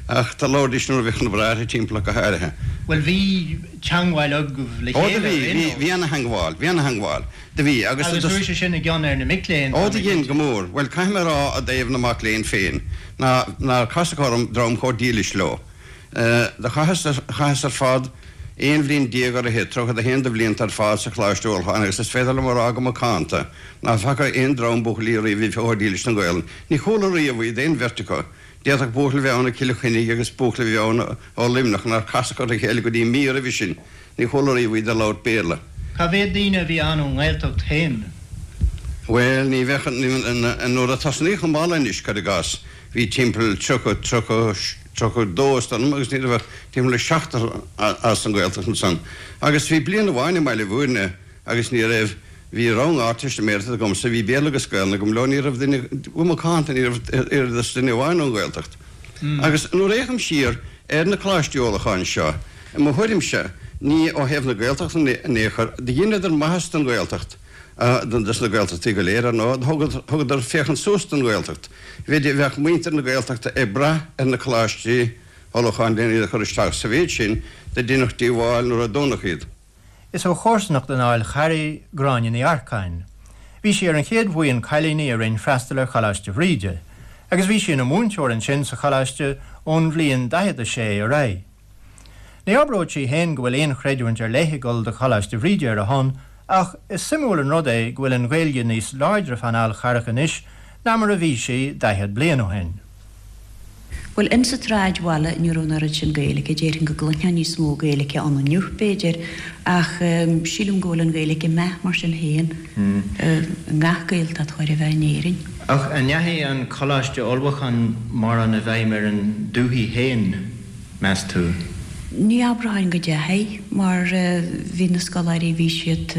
ach do labhraidís nuair a bhíodh na bráithre timpeall ach go háirithe. Bhuel, bhí teangmháil agaibh le Ó, do chéile bhí, ar aon bhí, nós. bhí ana-theangmháil, bhí ana-theangmháil, do bhí, agus Agus do. chuaigh sé sin i gcion ar na mic léinn, Ó, tá do mé dhein, cinnte. go mór. Bhuel, caithfidh mé a rá i dtaobh na mac léinn féin, ná, nár casadh orm dream chomh dílis leo. Do chaitheas, chaitheas ar fad 11 bhliain ar fhichid, 31 de bhlianta ar fad sa Choláiste Ullmhúcháin agus is féidir liom a rá go macánta ná faca aon dream buachaillí riamh a bhí chomh dílis don Ghaelainn. Ní chuala riamh iad, aon bheirt acu. D'fhéadfadh buachaill a bheith ann ó Chill Chainnigh agus buachaill a bheith ann ó Luimneach nár casadh ar a chéile go dtí mí roimhe sin. Ní chuala riamh iad ag labhairt Béarla. Cá mhéad daoine a bhí ann ón nGaeltacht féin? Bhuel, ní bheadh, nuair a tosnaíodh an baile anois, cuir i gcás, bhí timpeall 30, 30, 32 is dóigh liom agus ní raibh ach timpeall le seachtar as an Ghaeltacht ansan. Agus bhí bliain amháin i mBaile Bhúirne agus ní raibh, bhí rang Ardteistiméireachta agamsa, bhí Béarla agus Gaelainn agam leo, ní raibh duine, go macánta ní raibh oiread is duine amháin ón Ghaeltacht. Agus nuair a fhéachaim siar ar na Coláistí Ullmhúcháin seo, i mo thuairimse, ní ó thaobh na Gaeltachta in aon chor, do dheineadar maitheas don Ghaeltacht, dos na Gaeltachtaí go léir, ar ndóigh, thugadar féachaint suas don Ghaeltacht. Bhí, bheadh muintir na Gaeltachta ag brath ar na Coláistí Ullmhúcháin len iad a chur isteach. Sa mhéid sin do deineadh díobháil nuair a dúnadh iad. Is ó chomharsanacht an Fháil Charraigh Gráinne Ní Earcáin. Bhí sí ar an chéad bhuíon cailíní a rinn freastal ar Choláiste Bhríde, agus bhí sí ina múinteoir ansin sa choláiste ón bhliain 46 ar aghaidh. Ní abródh sí féin go bhfuil aon chreidiúint ar leith ag dul do Choláiste Bhríde ar a shon ach is suimiúil an rud é go bhfuil an Ghaeilge níos láidre fán Fhál Charrach anois ná mar a bhí sí 40 bliain ó shin. Bhuel, insa tsráidbhaile ní raibh an oiread sin Gaeilge, déarfainn go gcluinfeá níos mó Gaeilge ann inniu, b'fhéidir, ach sílim go bhfuil an Ghaeilge ag meath mar sin féin i ngach Gaeltacht chóir a bheith in Éirinn. Ach an ndeachaigh an Coláiste Ullmhúcháin mórán i bhfeidhm ar an dúthaigh féin? meas tú? Ní abróinn go dteachaigh, mar bhí na scoláirí, bhí siad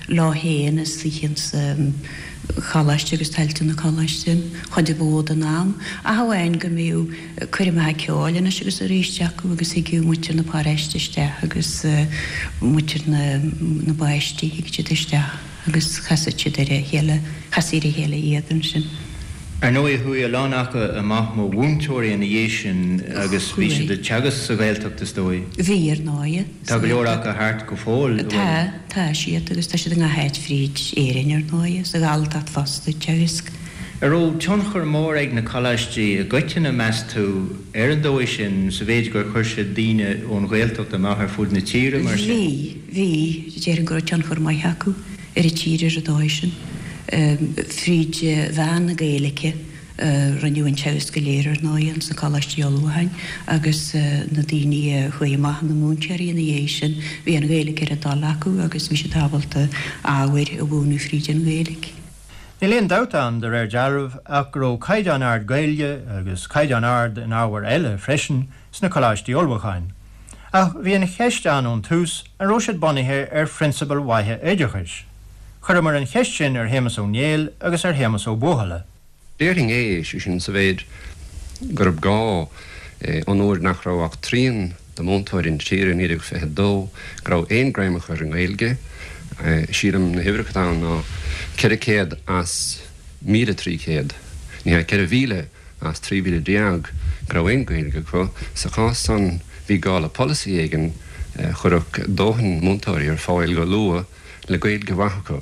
leo féin istigh insa choláiste agus tailte na coláiste an chuid ba mhó den am, ach amháin go mbíodh coirmeacha ceoil anois agus arís acu agus thigeadh muintir na paróiste isteach agus muintir na na bpáistí, thigeadh siad isteach. agus chasadh siad ar a chéile, chastaí ar a chéile iad ansin. Ar ndóigh, chuaigh a lán acu amach mar mhúinteoirí ina dhiaidh sin agus bhí siad ag teagasc sa Ghaeltacht, is dóigh. Bhí, ar ndóigh. Tá go leor acu thart go fóill, an bhfuil? Tá, tá siad agus tá siad i ngach áit fríd Éirinn, ar ndóigh, sa Ghalltacht fosta ag teagasc. An raibh tionchar mór ag na coláistí i gcoitinne, meas tú, ar an dóigh sin, sa mhéid gur chuir siad daoine ón Ghaeltacht amach ar fud na tíre, mar sin? Bhí. Bhí, déarfainn go raibh tionchar maith acu ar an tír ar an dóigh sin. Fríd mheán na Gaeilge a rinneadh an teagasc go léir ar ndóigh ins na Coláistí Ullmhúcháin agus na daoine a chuaigh amach ina múinteoirí ina dhiaidh sin, bhí an Ghaeilge ar a dtoil acu agus bhí siad ábalta ábhair a mhúineadh fríd an Ghaeilge. Níl aon dabht ann, de réir dealraimh, ach go raibh caighdeán ard Gaeilge, agus caighdeán ard in ábhair eile freisin, sna Coláistí Ullmhúcháin. Ach bhí an cheist ann ón tús an raibh siad bunaithe ar phrionsabail mhaithe oideachais. Chuireamar an cheist sin ar Shéamus Ó Néill agus ar Shéamus Ó Buachalla. Déarfainn é, sé sin, sa mhéid gurb gá, ón uair nach raibh ach trian de mhúinteoirí na tíre i 1922 go raibh aon greim acu ar an nGaeilge. Sílim na huimhreacha atá ann ná 400 as 1,300, ní hea, 4,000 as 13,000 go raibh aon Ghaeilge acu. Sa chás san bhí gá le polasaí éigin a chuirfeadh dóthain múinteoirí ar fáil go luath le Gaeilge mhaith acu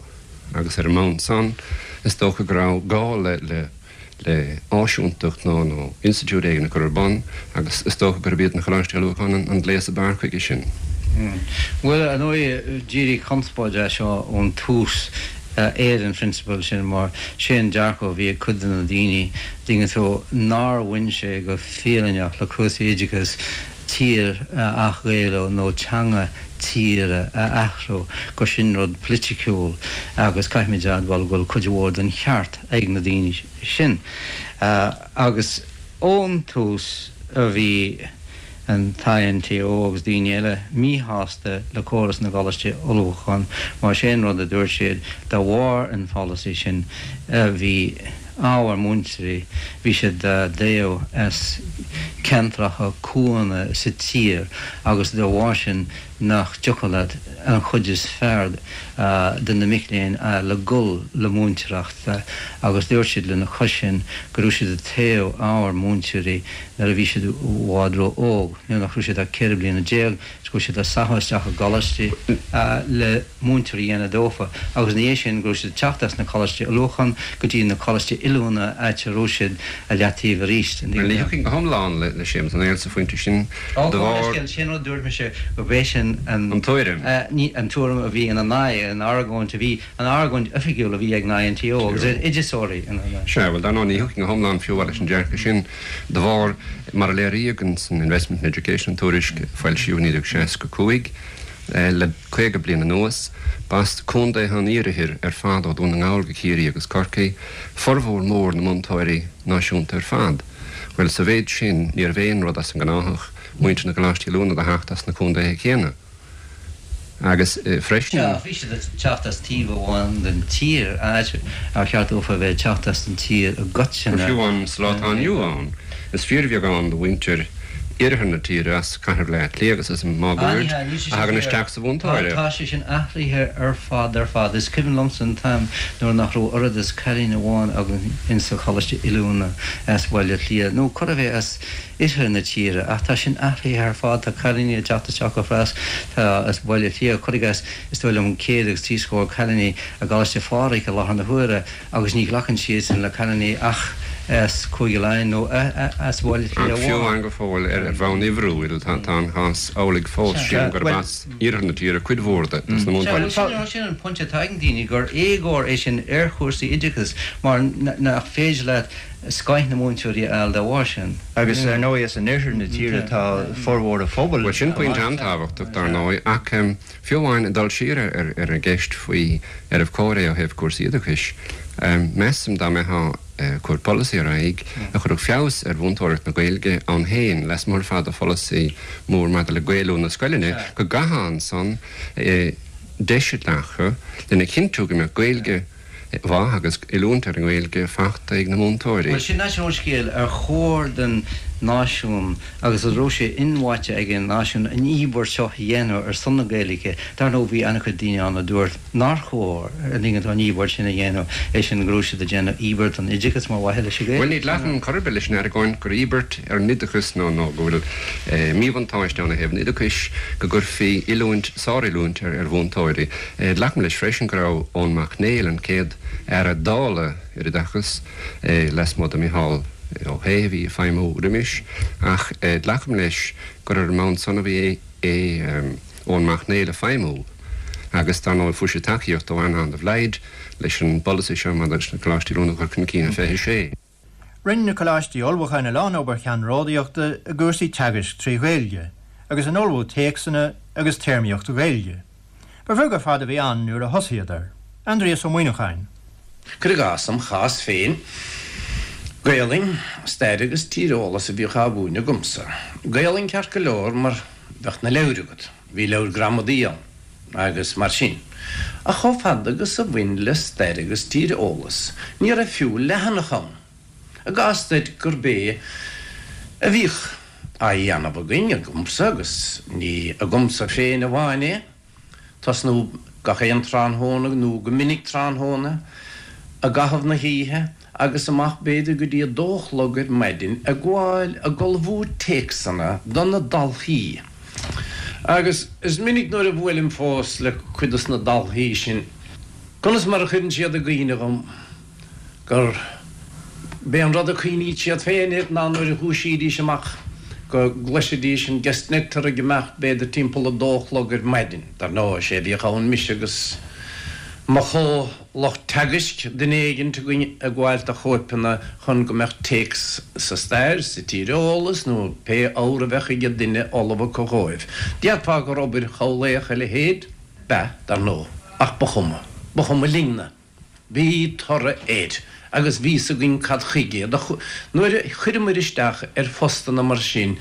agus ar an mbonn san is dócha go raibh gá le le áisiúntacht nó nó institiúid éigin a chur ar bun agus is dócha gurb iad na Coláistí Ullmhúcháin an gléas ab fhearr chuige sin. Bhuel, ar ndóigh, d'éirigh conspóid as seo ón tús ar an phrionsabal sin mar sé an dearcadh a bhí ag cuid de na daoine, dtuigeann tú, nár bhain sé go fírinneach le cúrsaí oideachais tír a athghaelú nó teanga tíre a athrú, gur sin rud politiciúil agus caithfimid a admháil go bhfuil cuid mhór den cheart ag na daoine sin. Agus ón tús a bhí an t-INTO agus daoine eile míshásta le córas na gcoláistí ullmhúcháin mar sé an rud a dúirt siad de bharr an pholasaí sin bhí ábhar múinteoirí, bhí siad á dtoghadh as ceantracha cuanna sa tír agus de bharr sin nach dtiocfadh leat an chuid is fearr de na mic léinn a fháil le gul le múinteoireacht agus dúirt siad lena chois sin go raibh siad ag toghadh ábhar múinteoirí nuair a bhí siad i bhfad ró-óg, nuair nach raibh siad ach 14 bliana is go raibh siad á sacadh isteach i gcoláistí le múinteoirí a dhéanamh dófa agus ina dhiaidh sin go raibh siad ag teacht as na coláistí ullmhúcháin go dtí na coláistí oiliúna áit a raibh siad i leataobh arís. Bhuel, ní thiocfainn go hiomlán le Séamus Ó Néill sa phointe sin de bharr. Sé an rud a dúirt mise gurb é sin an. An tuairim. An tuairim a bhí ina n-aghaidh, an argóint a bhí, an argóint oifigiúil a bhí ag an INTO agus ar oideachasóirí ina n-aghaidh. Sea, bhuel, dar ndóigh, ní thiocfainn go hiomlán fiú leis an dearcadh sin de bharr, mar a léiríodh in san Investment in Education, an tuairisc a foilsíodh i 1965, Le 50 bliain anuas, b'as contaetha an iarthair ar fad ó Dhún na nGall go Ciarraí agus Corcaigh formhór mór na múinteoirí náisiúnta ar fad. Bhuel, sa mhéid sin, níorbh aon rud as an ngnáthach muintir na gcoláistí oiliúna do theacht as na contaetha céanna. Agus freisin. Sea, ach bhí siad ag teacht as taobh amháin den tír, áit ar cheart dófa a bheith ag teacht as an tír i gcoitinne. Fiú amháin sa lá atá inniu ann, is fíorbheagán de mhuintir iarthar na tíre, as cathair Bhaile Átha Cliath agus as an máguaird, a thagann isteach sa mhúinteoireacht. Tá sé sin athraithe ar fad ar fad. Is cuimhin liomsa an t-am nuair nach raibh oiread is cailín amháin againn insa choláiste oiliúna as Baile Átha Cliath, nó chor ar bith as oirthear na tíre, ach tá sin athraithe ar fad. Tá cailíní ag teacht isteach go fras, tá as Baile Átha Cliath, cuir i gcás, is dóigh liom 130 cailíní i gColáiste Phádraig i láthair na huaire, Agus ní ghlacann siadsan le cailíní ach as Cúige Laighean nó as Baile Átha Cliath Ach fiú amháin go fóill ar bhonn uimhriúil tá an cás amhlaidh fós, sílim gurb as iarthar na tíre cuid mhór de na múinteoirí. Sea, sin an pointe atá ag na daoine, gur éagóir é sin ar chúrsaí oideachais mar nach féidir leat scoith na múinteoirí a fháil dá bharr sin. Agus ar ndóigh as an oirthear na tíre atá formhór an phobail. Bhuel sin pointe an-tábhachtach dar ndóigh ach Fiú amháin ag dul siar ar an gceist faoi arbh chóir é ó thaobh cúrsaí oideachais, measaim dá mbeifeá ag cur polasaí ar aghaidh a chuirfeadh feabhas ar mhúinteoireacht na Gaeilge ann féin, lasmuigh ar fad de pholasaí mór maidir le Gaelú na scoileanna, go gcaithfeá ansan deis a ghlacadh lena chinntiú go mbeadh Gaeilge mhaith agus oiliúint ar an nGaeilge fachta ag na múinteoirí. Bhuel, sin an scéal. Ar chóir don náisiún, agus an raibh sé inmhaite ag an náisiún, an íobairt seo a dhéanamh ar son na Gaeilge? Dar ndóigh, bhí an-chuid daoine ann a dúirt nár chóir an íobairt sin a dhéanamh, é sin go raibh siad ag déanamh íobairt don oideachas mar mhaithe leis an Ghaeilge. Bhuel, ní ghlacaim chor ar bith leis an argóint gur íobairt ar an oideachas nó nó go bhfuil míbhuntáiste ann ó thaobh an oideachais go gcuirfí oiliúint, sároiliúint ar mhúinteoirí. Glacaim leis freisin go raibh Eoin Mac Néill, an chéad Aire Dála ar Oideachas, lasmuigh de Mhicheál Ó hAodha a bhí ag feidhmiú roimis, ach glacaim leis gur ar an mbonn san a bhí Eoin Mac Néill ag feidhmiú agus dar ndóigh fuair sé tacaíocht ó Eanán de Blaghd leis an bpolasaí seo maidir leis na Coláistí Oiliúna a chur chun cinn i 26. Rinne na Coláistí Ullmhúcháin a lán obair cheannródaíochta i gcúrsaí teagaisc trí Ghaeilge agus in ullmhú téacsanna agus téarmaíocht Ghaeilge. Ba bheag ar fad a bhí ann nuair a thosaíodar. Aindrias Ó Muimhneacháin. Cuir i gcás, im chás féin, Gaolainn, Stair agus Tíreolas a bhíodh á mhúineadh agamsa. Gaolainn ceart go leor mar bheadh na leabhair agat, bhí leabhair gramadaí ann agus mar sin. Ach chomh fada agus a bhain le stair agus tíreolas, ní raibh fiú leathanach ann. I gcás duit gurb é a bhíodh á dhéanamh againn, agamsa, agus ní agamsa féin amháin é, tosnú. gach aon tráthnóna nó go minic tráthnóna i gcaitheamh na hoíche agus amach b'fhéidir go dtí a dó a chlog ar maidin ag gabháil ag ullmhú téacsanna do na dalthaí. Agus is minic nuair a bhuailim fós le cuid dos na dalthaí sin conas mar a chuireann siad i gcuimhne dhom gur b'é an rud a chuimhníd siad féin air ná nuair a dhúisídís amach go gcloisidís an Gestetner ag imeacht b'fhéidir timpeall a dó a chlog ar maidin. Dar ndóigh, is é a bhíodh ann mise agus mo chomh-lucht teagaisc, duine éigint againn ag gabháil do chóipeanna chun go mbeadh téacs sa stair, sa tíreolas nó pé ábhar a bheadh ag duine ullamh acu dhóibh. Déarfá gur obair chamhlaoch a leithéid? B'ea, dar ndóigh, ach ba chuma. Ba chuma linn-na. Bhí toradh air agus bhí 's againn cad chuige. Nuair a chuireamair isteach ar phostanna mar sin,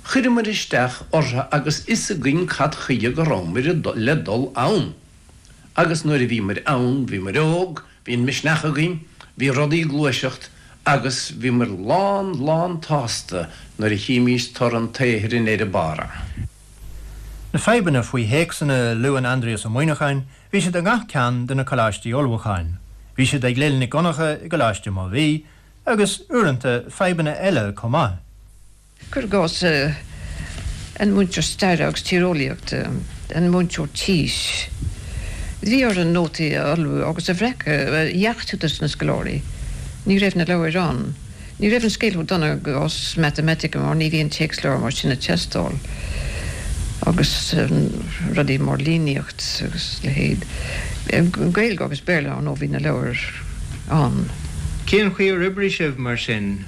chuireamair isteach orthu agus fhios againn cad chuige go rabhamair le dul ann. Agus nuair a bhíomair ann, bhíomair óg, bhí an misneach againn, bhí rudaí ag gluaiseacht agus bhíomair lán, lán tsásta nuair a chímís toradh an tsaothair i ndeireadh barra. Na fadhbanna faoi théacsanna a luann Aindrias Ó Muimhneacháin, bhí siad i ngach ceann de na coláistí ullmhúcháin. Bhí siad ag Lil Nic Dhonncha i gColáiste Mobhí, agus, uaireanta, fadhbanna eile chomh maith. Cuir i gcás, an múinteoir staire agus tíreolaíochta, an múinteoir tís, bhí orainn nótaí a ullmhú agus a bhreacadh, a dheachtú dos na scoláirí. Ní raibh na leabhair ann. Ní raibh an scéal chomh dona i gcás matamaitice mar ní bhíonn téacsleabhar mar sin ag teastáil agus rudaí mar líníocht agus a leithéid. Gaeilge agus Béarla, ar ndóigh, bhí na leabhair ann. Cén chaoi ar oibrigh sibh mar sin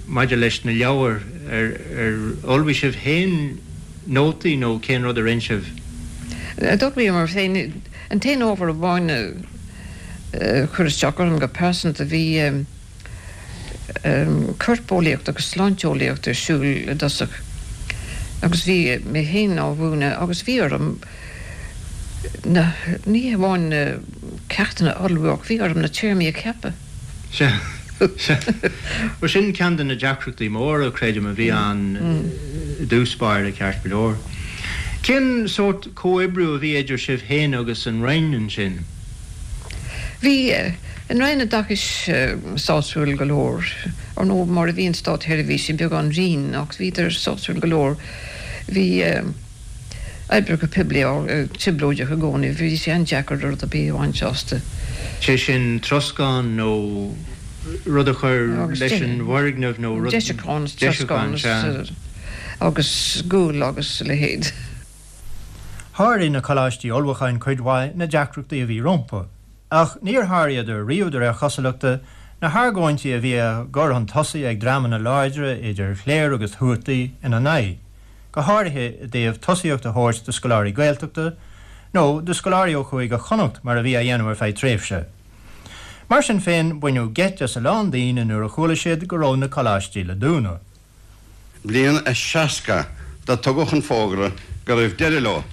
maidir leis na leabhair? Ar ullmhaigh sibh féin nótaí nó cén rud a rinn sibh? D'ullmhaíomar féin. An t-aon ábhar amháin a chuir isteach orm go pearsanta bhí. corpeolaíocht agus sláinteolaíocht ar siúl i dtosach agus bhí mé féin á mhúineadh agus bhí orm na, ní hamháin na ceachtanna a ullmhú ach bhí orm na téarmaí a cheapadh. Sea, sea. Bhuel sin ceann de na deacrachtaí móra, creidim, a bhí ann i dtús báire, ceart go leor. Cén sórt comhoibriú a bhí idir sibh féin agus an Roinn ansin? Bhí an Roinn Oideachais sásúil go leor, ar ndóigh, mar a bhíonn státsheirbhísigh, beagán righin, ach bhíodar sásúil go leor. Bhí oibreacha poiblí trioblóideach i gcónaí, bhí sé an-deacair rud ar bith a bhaint astu. Sé sin troscán nó rud a chur leis an bhfoirgneamh nó rud. Deisiúchán, troscán agus gual agus a leithéid. Sháraigh na coláistí ullmhúcháin cuid mhaith na deacrachtaí a bhí rompu, ach níor sháraíodar riamh de réir chosúlachta, na hargóintí a bhí á gcur chun tosaigh ag dreamanna láidre idir chléir agus thuataí ina n-aghaidh, go háirithe i dtaobh tosaíocht a thabhairt do scoláirí Gaeltachta, nó do scoláirí ó Chúige Chonnacht mar a bhí á dhéanamh ar feadh tréimhse. Mar sin féin, baineadh geit as a lán daoine nuair a chuala siad go raibh na coláistí le dúnadh. Bliain a 60 do tugadh an fógra go raibh deireadh leo.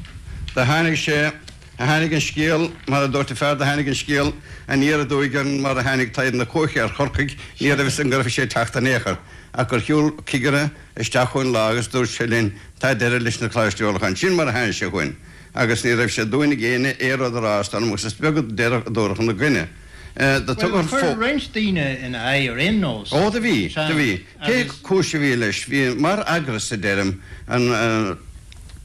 Do tháinig sé, tháinig an scéal, mar a dúirt an fear, do tháinig an scéal aniar aduaidh orainn mar a tháinig taghd na cuaiche ar Chorcaigh, ní raibh fhios againn go raibh sé ag teacht in aon chor, ach gur shiúl cigire isteach chugainn lá agus dúirt sé linn, tá deireadh leis na Coláistí Ullmhúcháin. Sin mar a tháinig sé chugainn agus ní raibh sé d'uain ag éinne aon rud a rá is dóigh liom agus is beag a dúradh ina gcoinne. Do tugadh an fógra. Chuir roinnt daoine ina aghaidh ar aon nós. Ó do bhí, do bhí. Pé cúis a bhí leis, bhí, mar eagras a deirim, an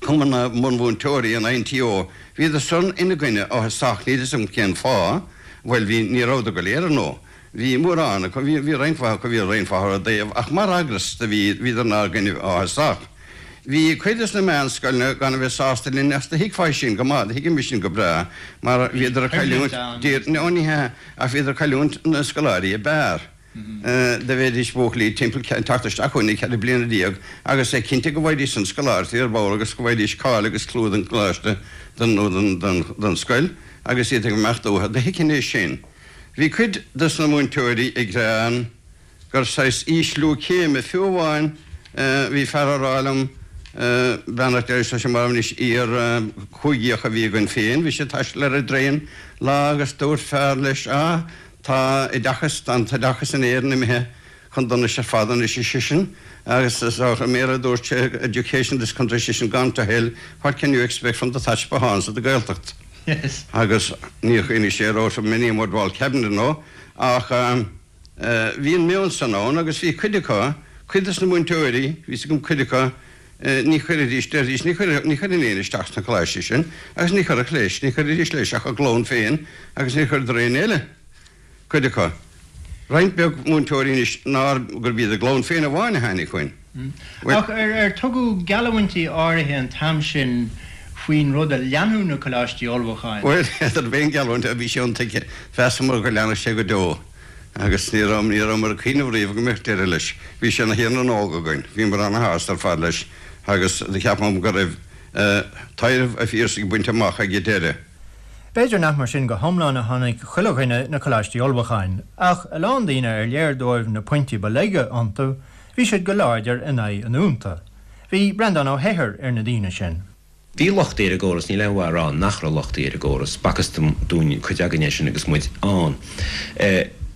Cumann na mBunmhúinteoirí, an INTO, bhíodar san ina gcoinne áthasach, níl fhios agam cén fáth, bhuel bhí, ní rabhadar go léir ar ndóigh, bhí mórán acu, bhí, bhí roinnt mhaith acu a bhí ar aon fáth ar a dtaobh, ach mar eagras do bhí, bhíodar inár gcoinne áthasach. Bhí cuid des na meánscoileanna gan a bheith sásta linn ach do thuigfeá sin go maith, do thuigimis sin go breá, mar bhíodar ag cailliúint, no ní hea, ach bhíodar ag cailliúint na scoláirí ab fhearr. Do bheidís buachaillí timpeall ag teacht isteach chugainn ag 14 bliana agus é cinnte go bhfaighidís an scoláireacht ar ball agus go bhfaighidís cáil agus clú don choláiste nó don scoil agus iad ag imeacht uathu. Do thuigfinn é sin. Bhí cuid dos na múinteoirí ag gearán gur saghas ísliú céime, fiú amháin bhí fear á rá liom, beannacht Dé leis, tá sé marbh anois, iar-chúigíoch a bhí againn féin, bhí sé ag taisteal ar an dtraein lá agus dúirt fear leis, ah, Tá oideachas, tá an t-oideachas in Éirinn imithe chun donais ar fad anois, ar seisean, agus is i mBéarla a dúirt sé, education in this country, ar seisean, gone to hell, what can you expect from the thatch behinds of the Gaeltacht? Agus níor chuimhnigh sé an raibh so many a mud wall cabinet nó ach bhí an meon san ann agus bhí cuid acu, cuid dos na múinteoirí, bhí 's agam cuid acu, ní chuirfidís, deiridís, ní chuirfeadh, ní chuirfinn éinne isteach sna coláistí sin agus ní chuirfeadh leis, ní chuirfidís leis ach a gclann féin agus ní chuireadar éinne eile. cuid acu. Roinnt beag múinteoirí anois nár, gurb iad a gclann féin amháin a tháinig chugainn. Ach ar tugadh geallamhaintí áirithe an t-am sin faoin rud a leanfadh na coláistí ullmhúcháin? Bhuel, n'fheadar aon gheallúint a bhí sé iontuigthe. Mheasamar go leanfadh sé go deo agus ní raibh, ní rabhamar ag cuimhneamh riamh go mbeadh deireadh leis. Bhí sé ina Thír na nÓg againn. Bhíomar ana-shásta ar fad leis agus do cheapamar go raibh tairbhe an Phiarsaigh bainte amach ag an deireadh. B'fhéidir nach mar sin go hiomlán a chonaic chuile dhuine na coláistí ullmhúcháin, ach a lán daoine ar léir dóibh na pointí ba laige iontu, bhí siad go láidir in aghaidh a ndúnta. Bhí Breandán Ó hEithir ar na daoine sin. Bhí lochtaí ar an gcóras, níl aon mhaith a rá nach raibh lochtaí ar an gcóras, b'fhacthas dúinn, cuid againn é sin agus muid ann.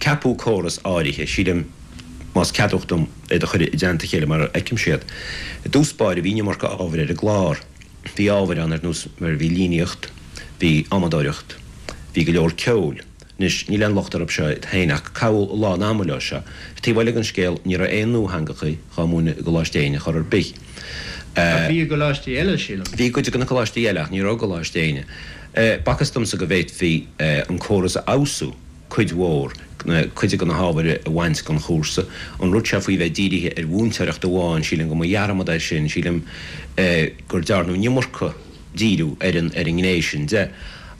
Ceapadh córas áirithe, sílim, más ceadmhach dom iad a chur i dteannta a chéile mar a fheicimse iad. I dtús báire bhí an iomarca ábhair ar an gclár. Bhí ábhair ann ar nós mar bhí líníocht, bhí adhmadóireacht, bhí go leor ceoil. Anois, níl aon locht orthu seo iad féin ach caitheadh a lán ama leo seo. Taobh eile den scéal, ní raibh aon nuatheangacha dhá múineadh i gColáiste Éinne chor ar bith. Ach bhí i gcoláistí eile, sílim. Bhí i gcuid de na coláistí eile ach ní raibh i gColáiste Éinne. B'fhacthas domsa go bhféadfaí an córas a fheabhsú. cuid mhór, cuid de na hábhair a bhaint den chúrsa. An rud seo faoi bheith dírithe ar mhúinteoireacht amháin, sílim go mba dhearmad é sin, sílim gur dearnadh an iomarca díriú ar an ar an ngné sin de.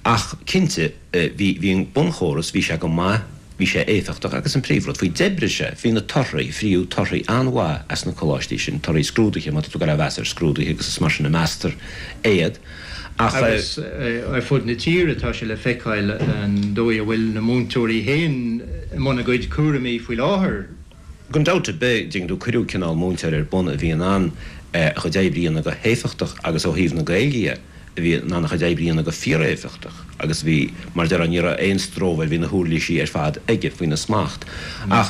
Ach cinnte, bhí bhí an bunchóras, bhí sé go maith, bhí sé éifeachtach agus an príomhrud faoi, d'oibrigh sé, bhí na torthaí, fríodh torthaí an-mhaith as na coláistí sin, torthaí scrúduithe, má tá tú ag goil á mheas ar scrúduithe agus is mar sin a meastar iad. Ach. Agus ar fud na tíre tá sé le feiceáil an dóigh a bhfuil na múinteoirí féin i mbun a gcuid cúraimí faoi láthair. Gan dabht ar bith, dtuigeann tú, cuireadh cineál múinteoir ar bun a bhí in ann a chuid oibre a dhéanamh go héifeachtach agus ó thaobh na Gaeilge dhe, a bhí in ann a chuid oibre a dhéanamh go fíoréifeachtach agus bhí, mar a déarfá, ní raibh aon stró air, bhí na huirlisí ar fad aige faoina smacht. Ach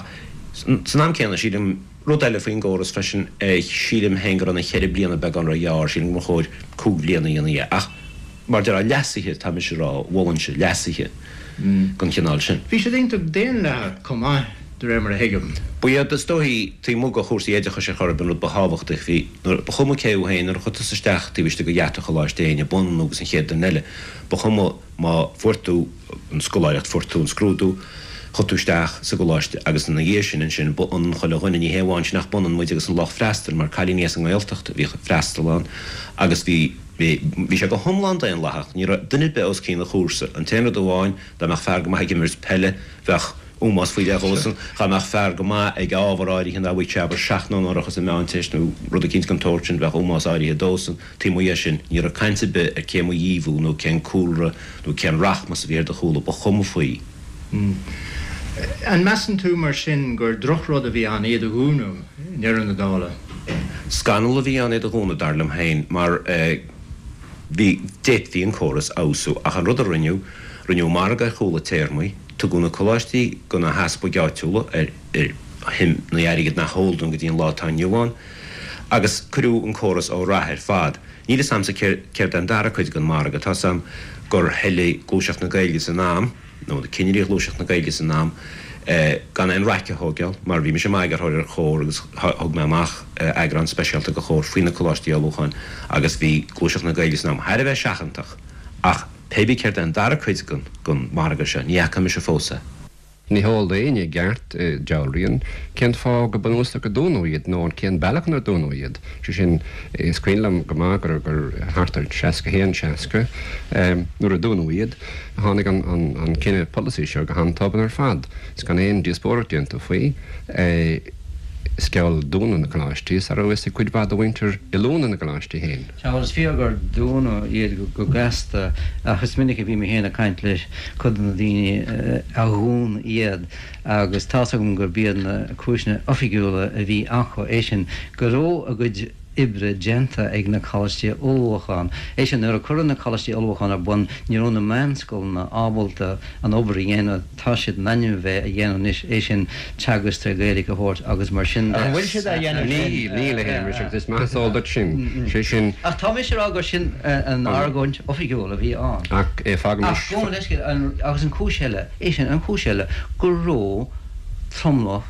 san am céanna, sílim, Rud eile faoin gcóras freisin, sílim féin go raibh na cheithre bliana beagán ró-ghearr, sílim go mba chóir cúig bhliana a dhéanamh dhe. Ach mar déarfá, leasuithe, tá mise a rá, mholfainnse leasuithe den chineál sin. Bhí siad iontach daonlathach chomh maith, de réir mar a thuigim. Ba iad, is dóichí, taobh amuigh de chúrsaí oideachais ar chor ar bith an rud ba thábhachtaí, bhí, nuair, ba chuma cé thú féin, nuair a chuaigh tusa isteach taobh istigh de gheata Choláiste Éinne, b'ionann agus an chéad duine eile, ba chuma má fuair tú an scoláireacht, fuair tú an scrúdú, chuaigh tú isteach sa gcoláiste agus ina dhiaidh sin ansin ba ionann chuile dhuine, ní hé amháin sin ach b'ionann muid agus an lucht freastail mar cailíní as an nGaeltacht a bhíodh ag freastal ann agus bhí, bhí, bhí sé go hiomlán daonlathach, ní raibh duine ar bith os cionn an chúrsa. An t-aon rud amháin, dá mbeadh fear go maith ag imirt peile, bheadh ómós faoi leith dhósan, dhá mbeadh fear go maith ag ábhar áirithe dá bhfaigheadh sé abair seacht n-onóracha sa Mheánteist nó rud eicínt den tsórt sin, bheadh ómós áirithe dósan. Taobh amuigh dhe sin, ní raibh caint ar bith ar cé mba dhíobh thú nó cén cúlra nó cén rachmas a bhí ar do chúla, ba chuma faoi. An measann tú, mar sin, gur drochrud a bhí ann iad a dhúnadh i ndeireadh na dála? Scannal a bhí ann iad a dhúnadh, dar liom féin, mar bhí, d'fhéadfaí an córas a fheabhsú, ach an rud a rinneadh, rinneadh margadh ar chúla téarmaí, tugadh na coláistí do na heaspaig áitiúla ar shuim na airgid nach eol dúinn go dtí an lá atá inniu ann. Agus cuireadh an córas ó rath ar fad. Níl fhios a'msa céard é an dara cuid den mhargadh. Tá's a'm gur thoiligh Gluaiseacht na Gaeilge san am, nó na cinnirí Ghluaiseacht na Gaeilge san am, gan aon raic a thóigeáil, mar bhí mise i m'eagarthóir ar Chomhar agus thug mé amach eagrán speisialta de Chomhar faoi na Coláistí Ullmhúcháin agus bhí Gluaiseacht na Gaeilge san am thar a bheith seachantach. Ach pé bí céard é an dara cuid den mhargadh seo, ní fhaca mise fós é. Ní heol d'éinne i gceart, dealraíonn, cén fáth go bunúsach a dúnadh iad nó cén bealach inar dúnadh iad. Sé sin, is cuimhin liom go maith gur gur thart ar 61, 60, nuair a dúnadh iad, tháinig an an cinneadh polasaí seo go han-tobann ar fad is gan aon díospóireacht déanta faoi. Is geall dúnadh na gcoláistí sara raibh fhios ag cuid mhaith de mhuintir oiliúna na gcoláistí féin. Sea, bhuel is fíor gur dúnadh iad go gasta ach is minic a bhí mé féin ag caint le cuid de na daoine a dhún iad agus tá's agam gurb iad na cúiseanna oifigiúla a bhí acu é sin go raibh a gcuid. oibre déanta ag na coláistí ullmhúcháin. É sin, nuair a cuireadh na coláistí ullmhúcháin ar bun, ní raibh na meánscoileanna ábalta an obair a dhéanamh atá siad in ainm a bheith a dhéanamh anois, é sin, teagasc tré Ghaeilge a thabhairt agus mar sin de. An bhfuil siad á dhéanamh sin? Níl, níl, a Shéamais, agus is maith is eol duit sin. Sé sin. Ach tá mise ag rá gur sin an argóint oifigiúil a bhí ann. Ach fágaimis. Ach gabh mo leithscéal, agus an chúis eile, é sin, an chúis eile, go raibh tromlach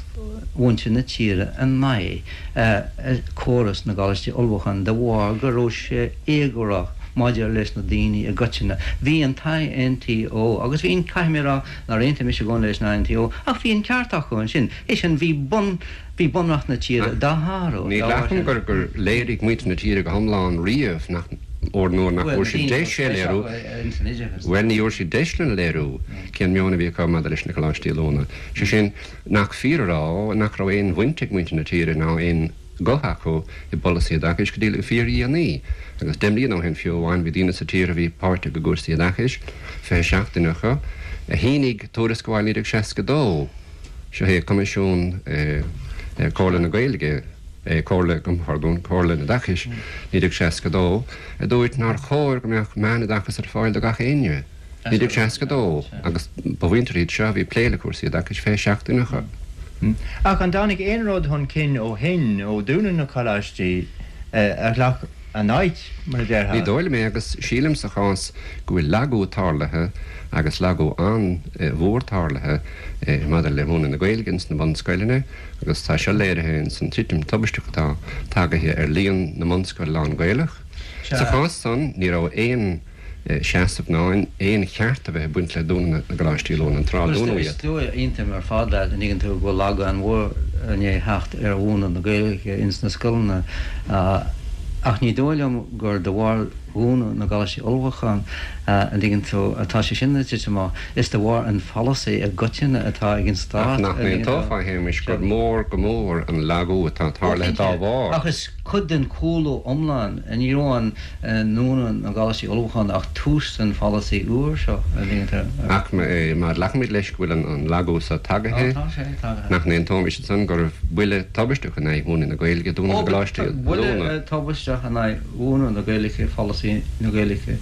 mhuintir na tíre in aghaidh córas na gcoláistí ullmhúcháin de bharr go raibh sé éagórach maidir leis na daoine i gcoitinne. Bhí an t-INTO, agus bhí an, caithfidh mé a rá nár aontaigh mise i gcónaí leis an INTO, ach bhí an ceart acu ansin, é sin, bhí bun, bhí bunreacht na tíre dá shárú Ní dá bharr ghlacaim sin. gur, gur léirigh muintir na tíre go hiomlán riamh nach, óir nuair nach Bhuel, bhfuair na siad daoine deis é a léiriú, ins an oideachas. bhuel, ní fhuair siad deis lena léiriú cén meon a bhí acu maidir leis na coláistí oiliúna. Sé sin, nach fíor a rá nach raibh aon bhaint ag muintir na tíre ná aon ghuth acu i bpolasaí oideachais go dtí le fíordhéanaí. Agus 10 mbliana ó shin fiú amháin bhí daoine sa tír a bhí páirteach i gcúrsaí oideachais, 27 duine acu, a shínigh tuarascáil 1962, seo é Coimisiún Comhairle na Gaeilge, Comhairle, gabh mo phardún, Comhairle an Oideachais, 1962, a dúirt nár chóir go mbeadh meánoideachas ar fáil do gach éinne. 1962, agus ba mhuintir iad seo a bhí ag plé le cúrsaí oideachais, 27 duine acu. Ach an dtáinig aon rud chun cinn ó shin, ó dúnadh na coláistí, a ghlac a n-áit, mar a déarfá? Ní dóigh liom é, agus sílim sa chás go bhfuil lagú tarlaithe, agus lagú an-mhór tarlaithe, maidir le múineadh na Gaeilge ins na bunscoileanna, agus tá seo léirithe ins an titim tubaisteach atá tagaithe ar líon na mbunscoil lán-Ghaelach. Sa chás san, ní raibh aon. seasamh ná aon cheart a bheith ag baint le dúnadh na gcoláistí oiliúna an tráth a dúnadh Is iad. dóigh, aontaím ar fad leat, an dtuigeann tú, go bhfuil lagú an-mhór i ndiaidh theacht ar mhúineadh na Gaeilge ins na scoileanna ach ní dóigh liom gur de bharr dhúnadh na gcoláistí ullmhúcháin, an dtuigeann tú, atá sé sin ag titim amach. Is de bharr an pholasaí i gcoitinne atá ag an Ach Stát, nach an dtuigeann tú. n-aontófá, a Shéamais, gur mór go mór an lagú atá Ó tarlaithe dá cinnte, bharr? ach is cuid den chúlú iomlán, ní raibh an. ndúnadh na gcoláistí ullmhúcháin ach tús den pholasaí úr seo, an dtuigeann tú. Ach má ghlacaimid leis go bhfuil an lagú so tagaithe, Ó, tá sé tagaithe. nach n-aontóimis ansan gurbh buille tubaisteach in aghaidh mhúineadh na Gaeilge dúnadh na Ó, gcoláistí buille oiliúna? tubaisteach in aghaidh mhúineadh na Gaeilge, pholasaí na Gaeilge,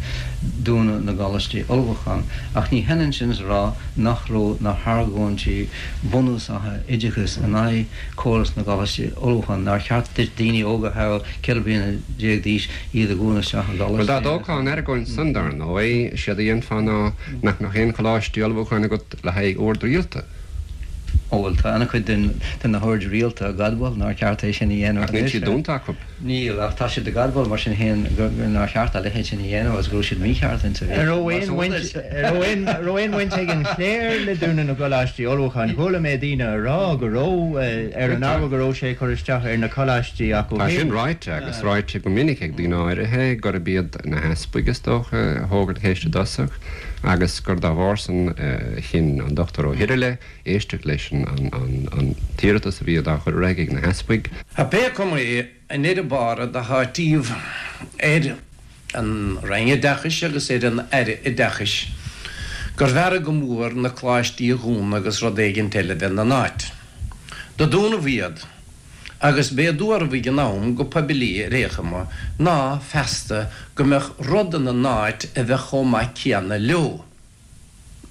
dúnadh na gcoláistí ullmhúcháin. Ach ní hionann sin is a rá nach raibh na hargóintí bunúsacha oideachais in aghaidh córas na gcoláistí ullmhúcháin, nár cheart duit daoine óga a thoghadh 14 bliana d'aois iad a dhúnadh isteach i Bhuel, dá gcoláistí. dtógfá an argóint san, dar ndóigh, séard a dhéanfá ná nach mbeadh aon choláistí ullmhúcháin agat le haghaidh oird rialta. Ó, bhuel, tá an-chuid de na hoird rialta ag admháil nár cheart é sin a dhéanamh Ach níl anois. siad dúnta acu. Níl, ach tá siad ag admháil mar sin féin nár cheart a leithéid sin a dhéanamh agus go raibh siad mícheart insa An raibh aon bhaint, an raibh aon bhaint ag an chléir le dúnadh na gcoláistí ullmhúcháin? Chuala mé daoine a rá go raibh, ar an ábhar go raibh sé ag cur isteach ar na coláistí acu Tá sin féin. ráite, agus ráite go minic ag daoine áirithe, gurb iad na heaspaig, is dócha, a thóg an cheist i dtosach agus gur dá bharr san a chinn an Dr. Ó hIrghile éisteacht leis an t-iarratas a bhí dá chur ar aghaidh ag na heaspaig. Pé cuma é, i ndeireadh bára do háitíodh ar an Roinn Oideachais agus ar an Aire Oideachais gurbh fhearra go mór na coláistí a dhúnadh agus rud éigint eile bheith 'na n-áit. Do dúnadh iad agus b'é a dúradh ag an am go poiblí ar aon chuma ná feasta go mbeadh rud ina n-áit a bheadh chomh maith céanna leo.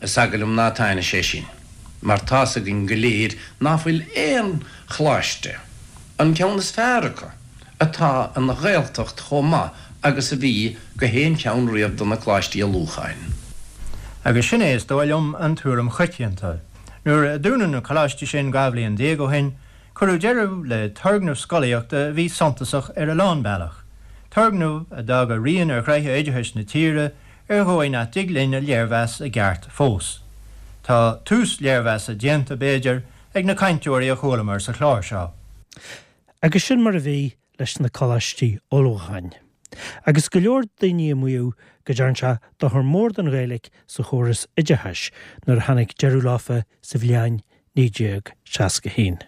Is eagal liom ná taitneoidh sé sin, mar tá's againn go léir ná fuil aon choláiste, an ceann is fearr acu, atá ina Ghaeltacht chomh maith agus a bhí go haon cheann riamh de na coláistí ullmhúcháin. Agus sin é, is dóigh liom, an tuairim choitianta. Nuair a dúnadh na coláistí sin 12 bhliain ó shin, cuireadh deireadh le turgnamh scolaíochta a bhí suntasach ar a lán bealach, turgnamh a d'fhág a rian ar ghnoithe oideachais na tíre ar dhóigh nach dtig linn a léirmheas i gceart fós. Tá tús léirmheasa déanta, b'fhéidir, ag na cainteoirí a chualamar sa chlár seo. Agus sin mar a bhí leis na coláistí ullmhúcháin. Agus go leor daoine ag maíomh go dtearn sé dochar mór don Ghaeilge sa chóras oideachais nuair a tháinig deireadh leofa sa bhliain 1961.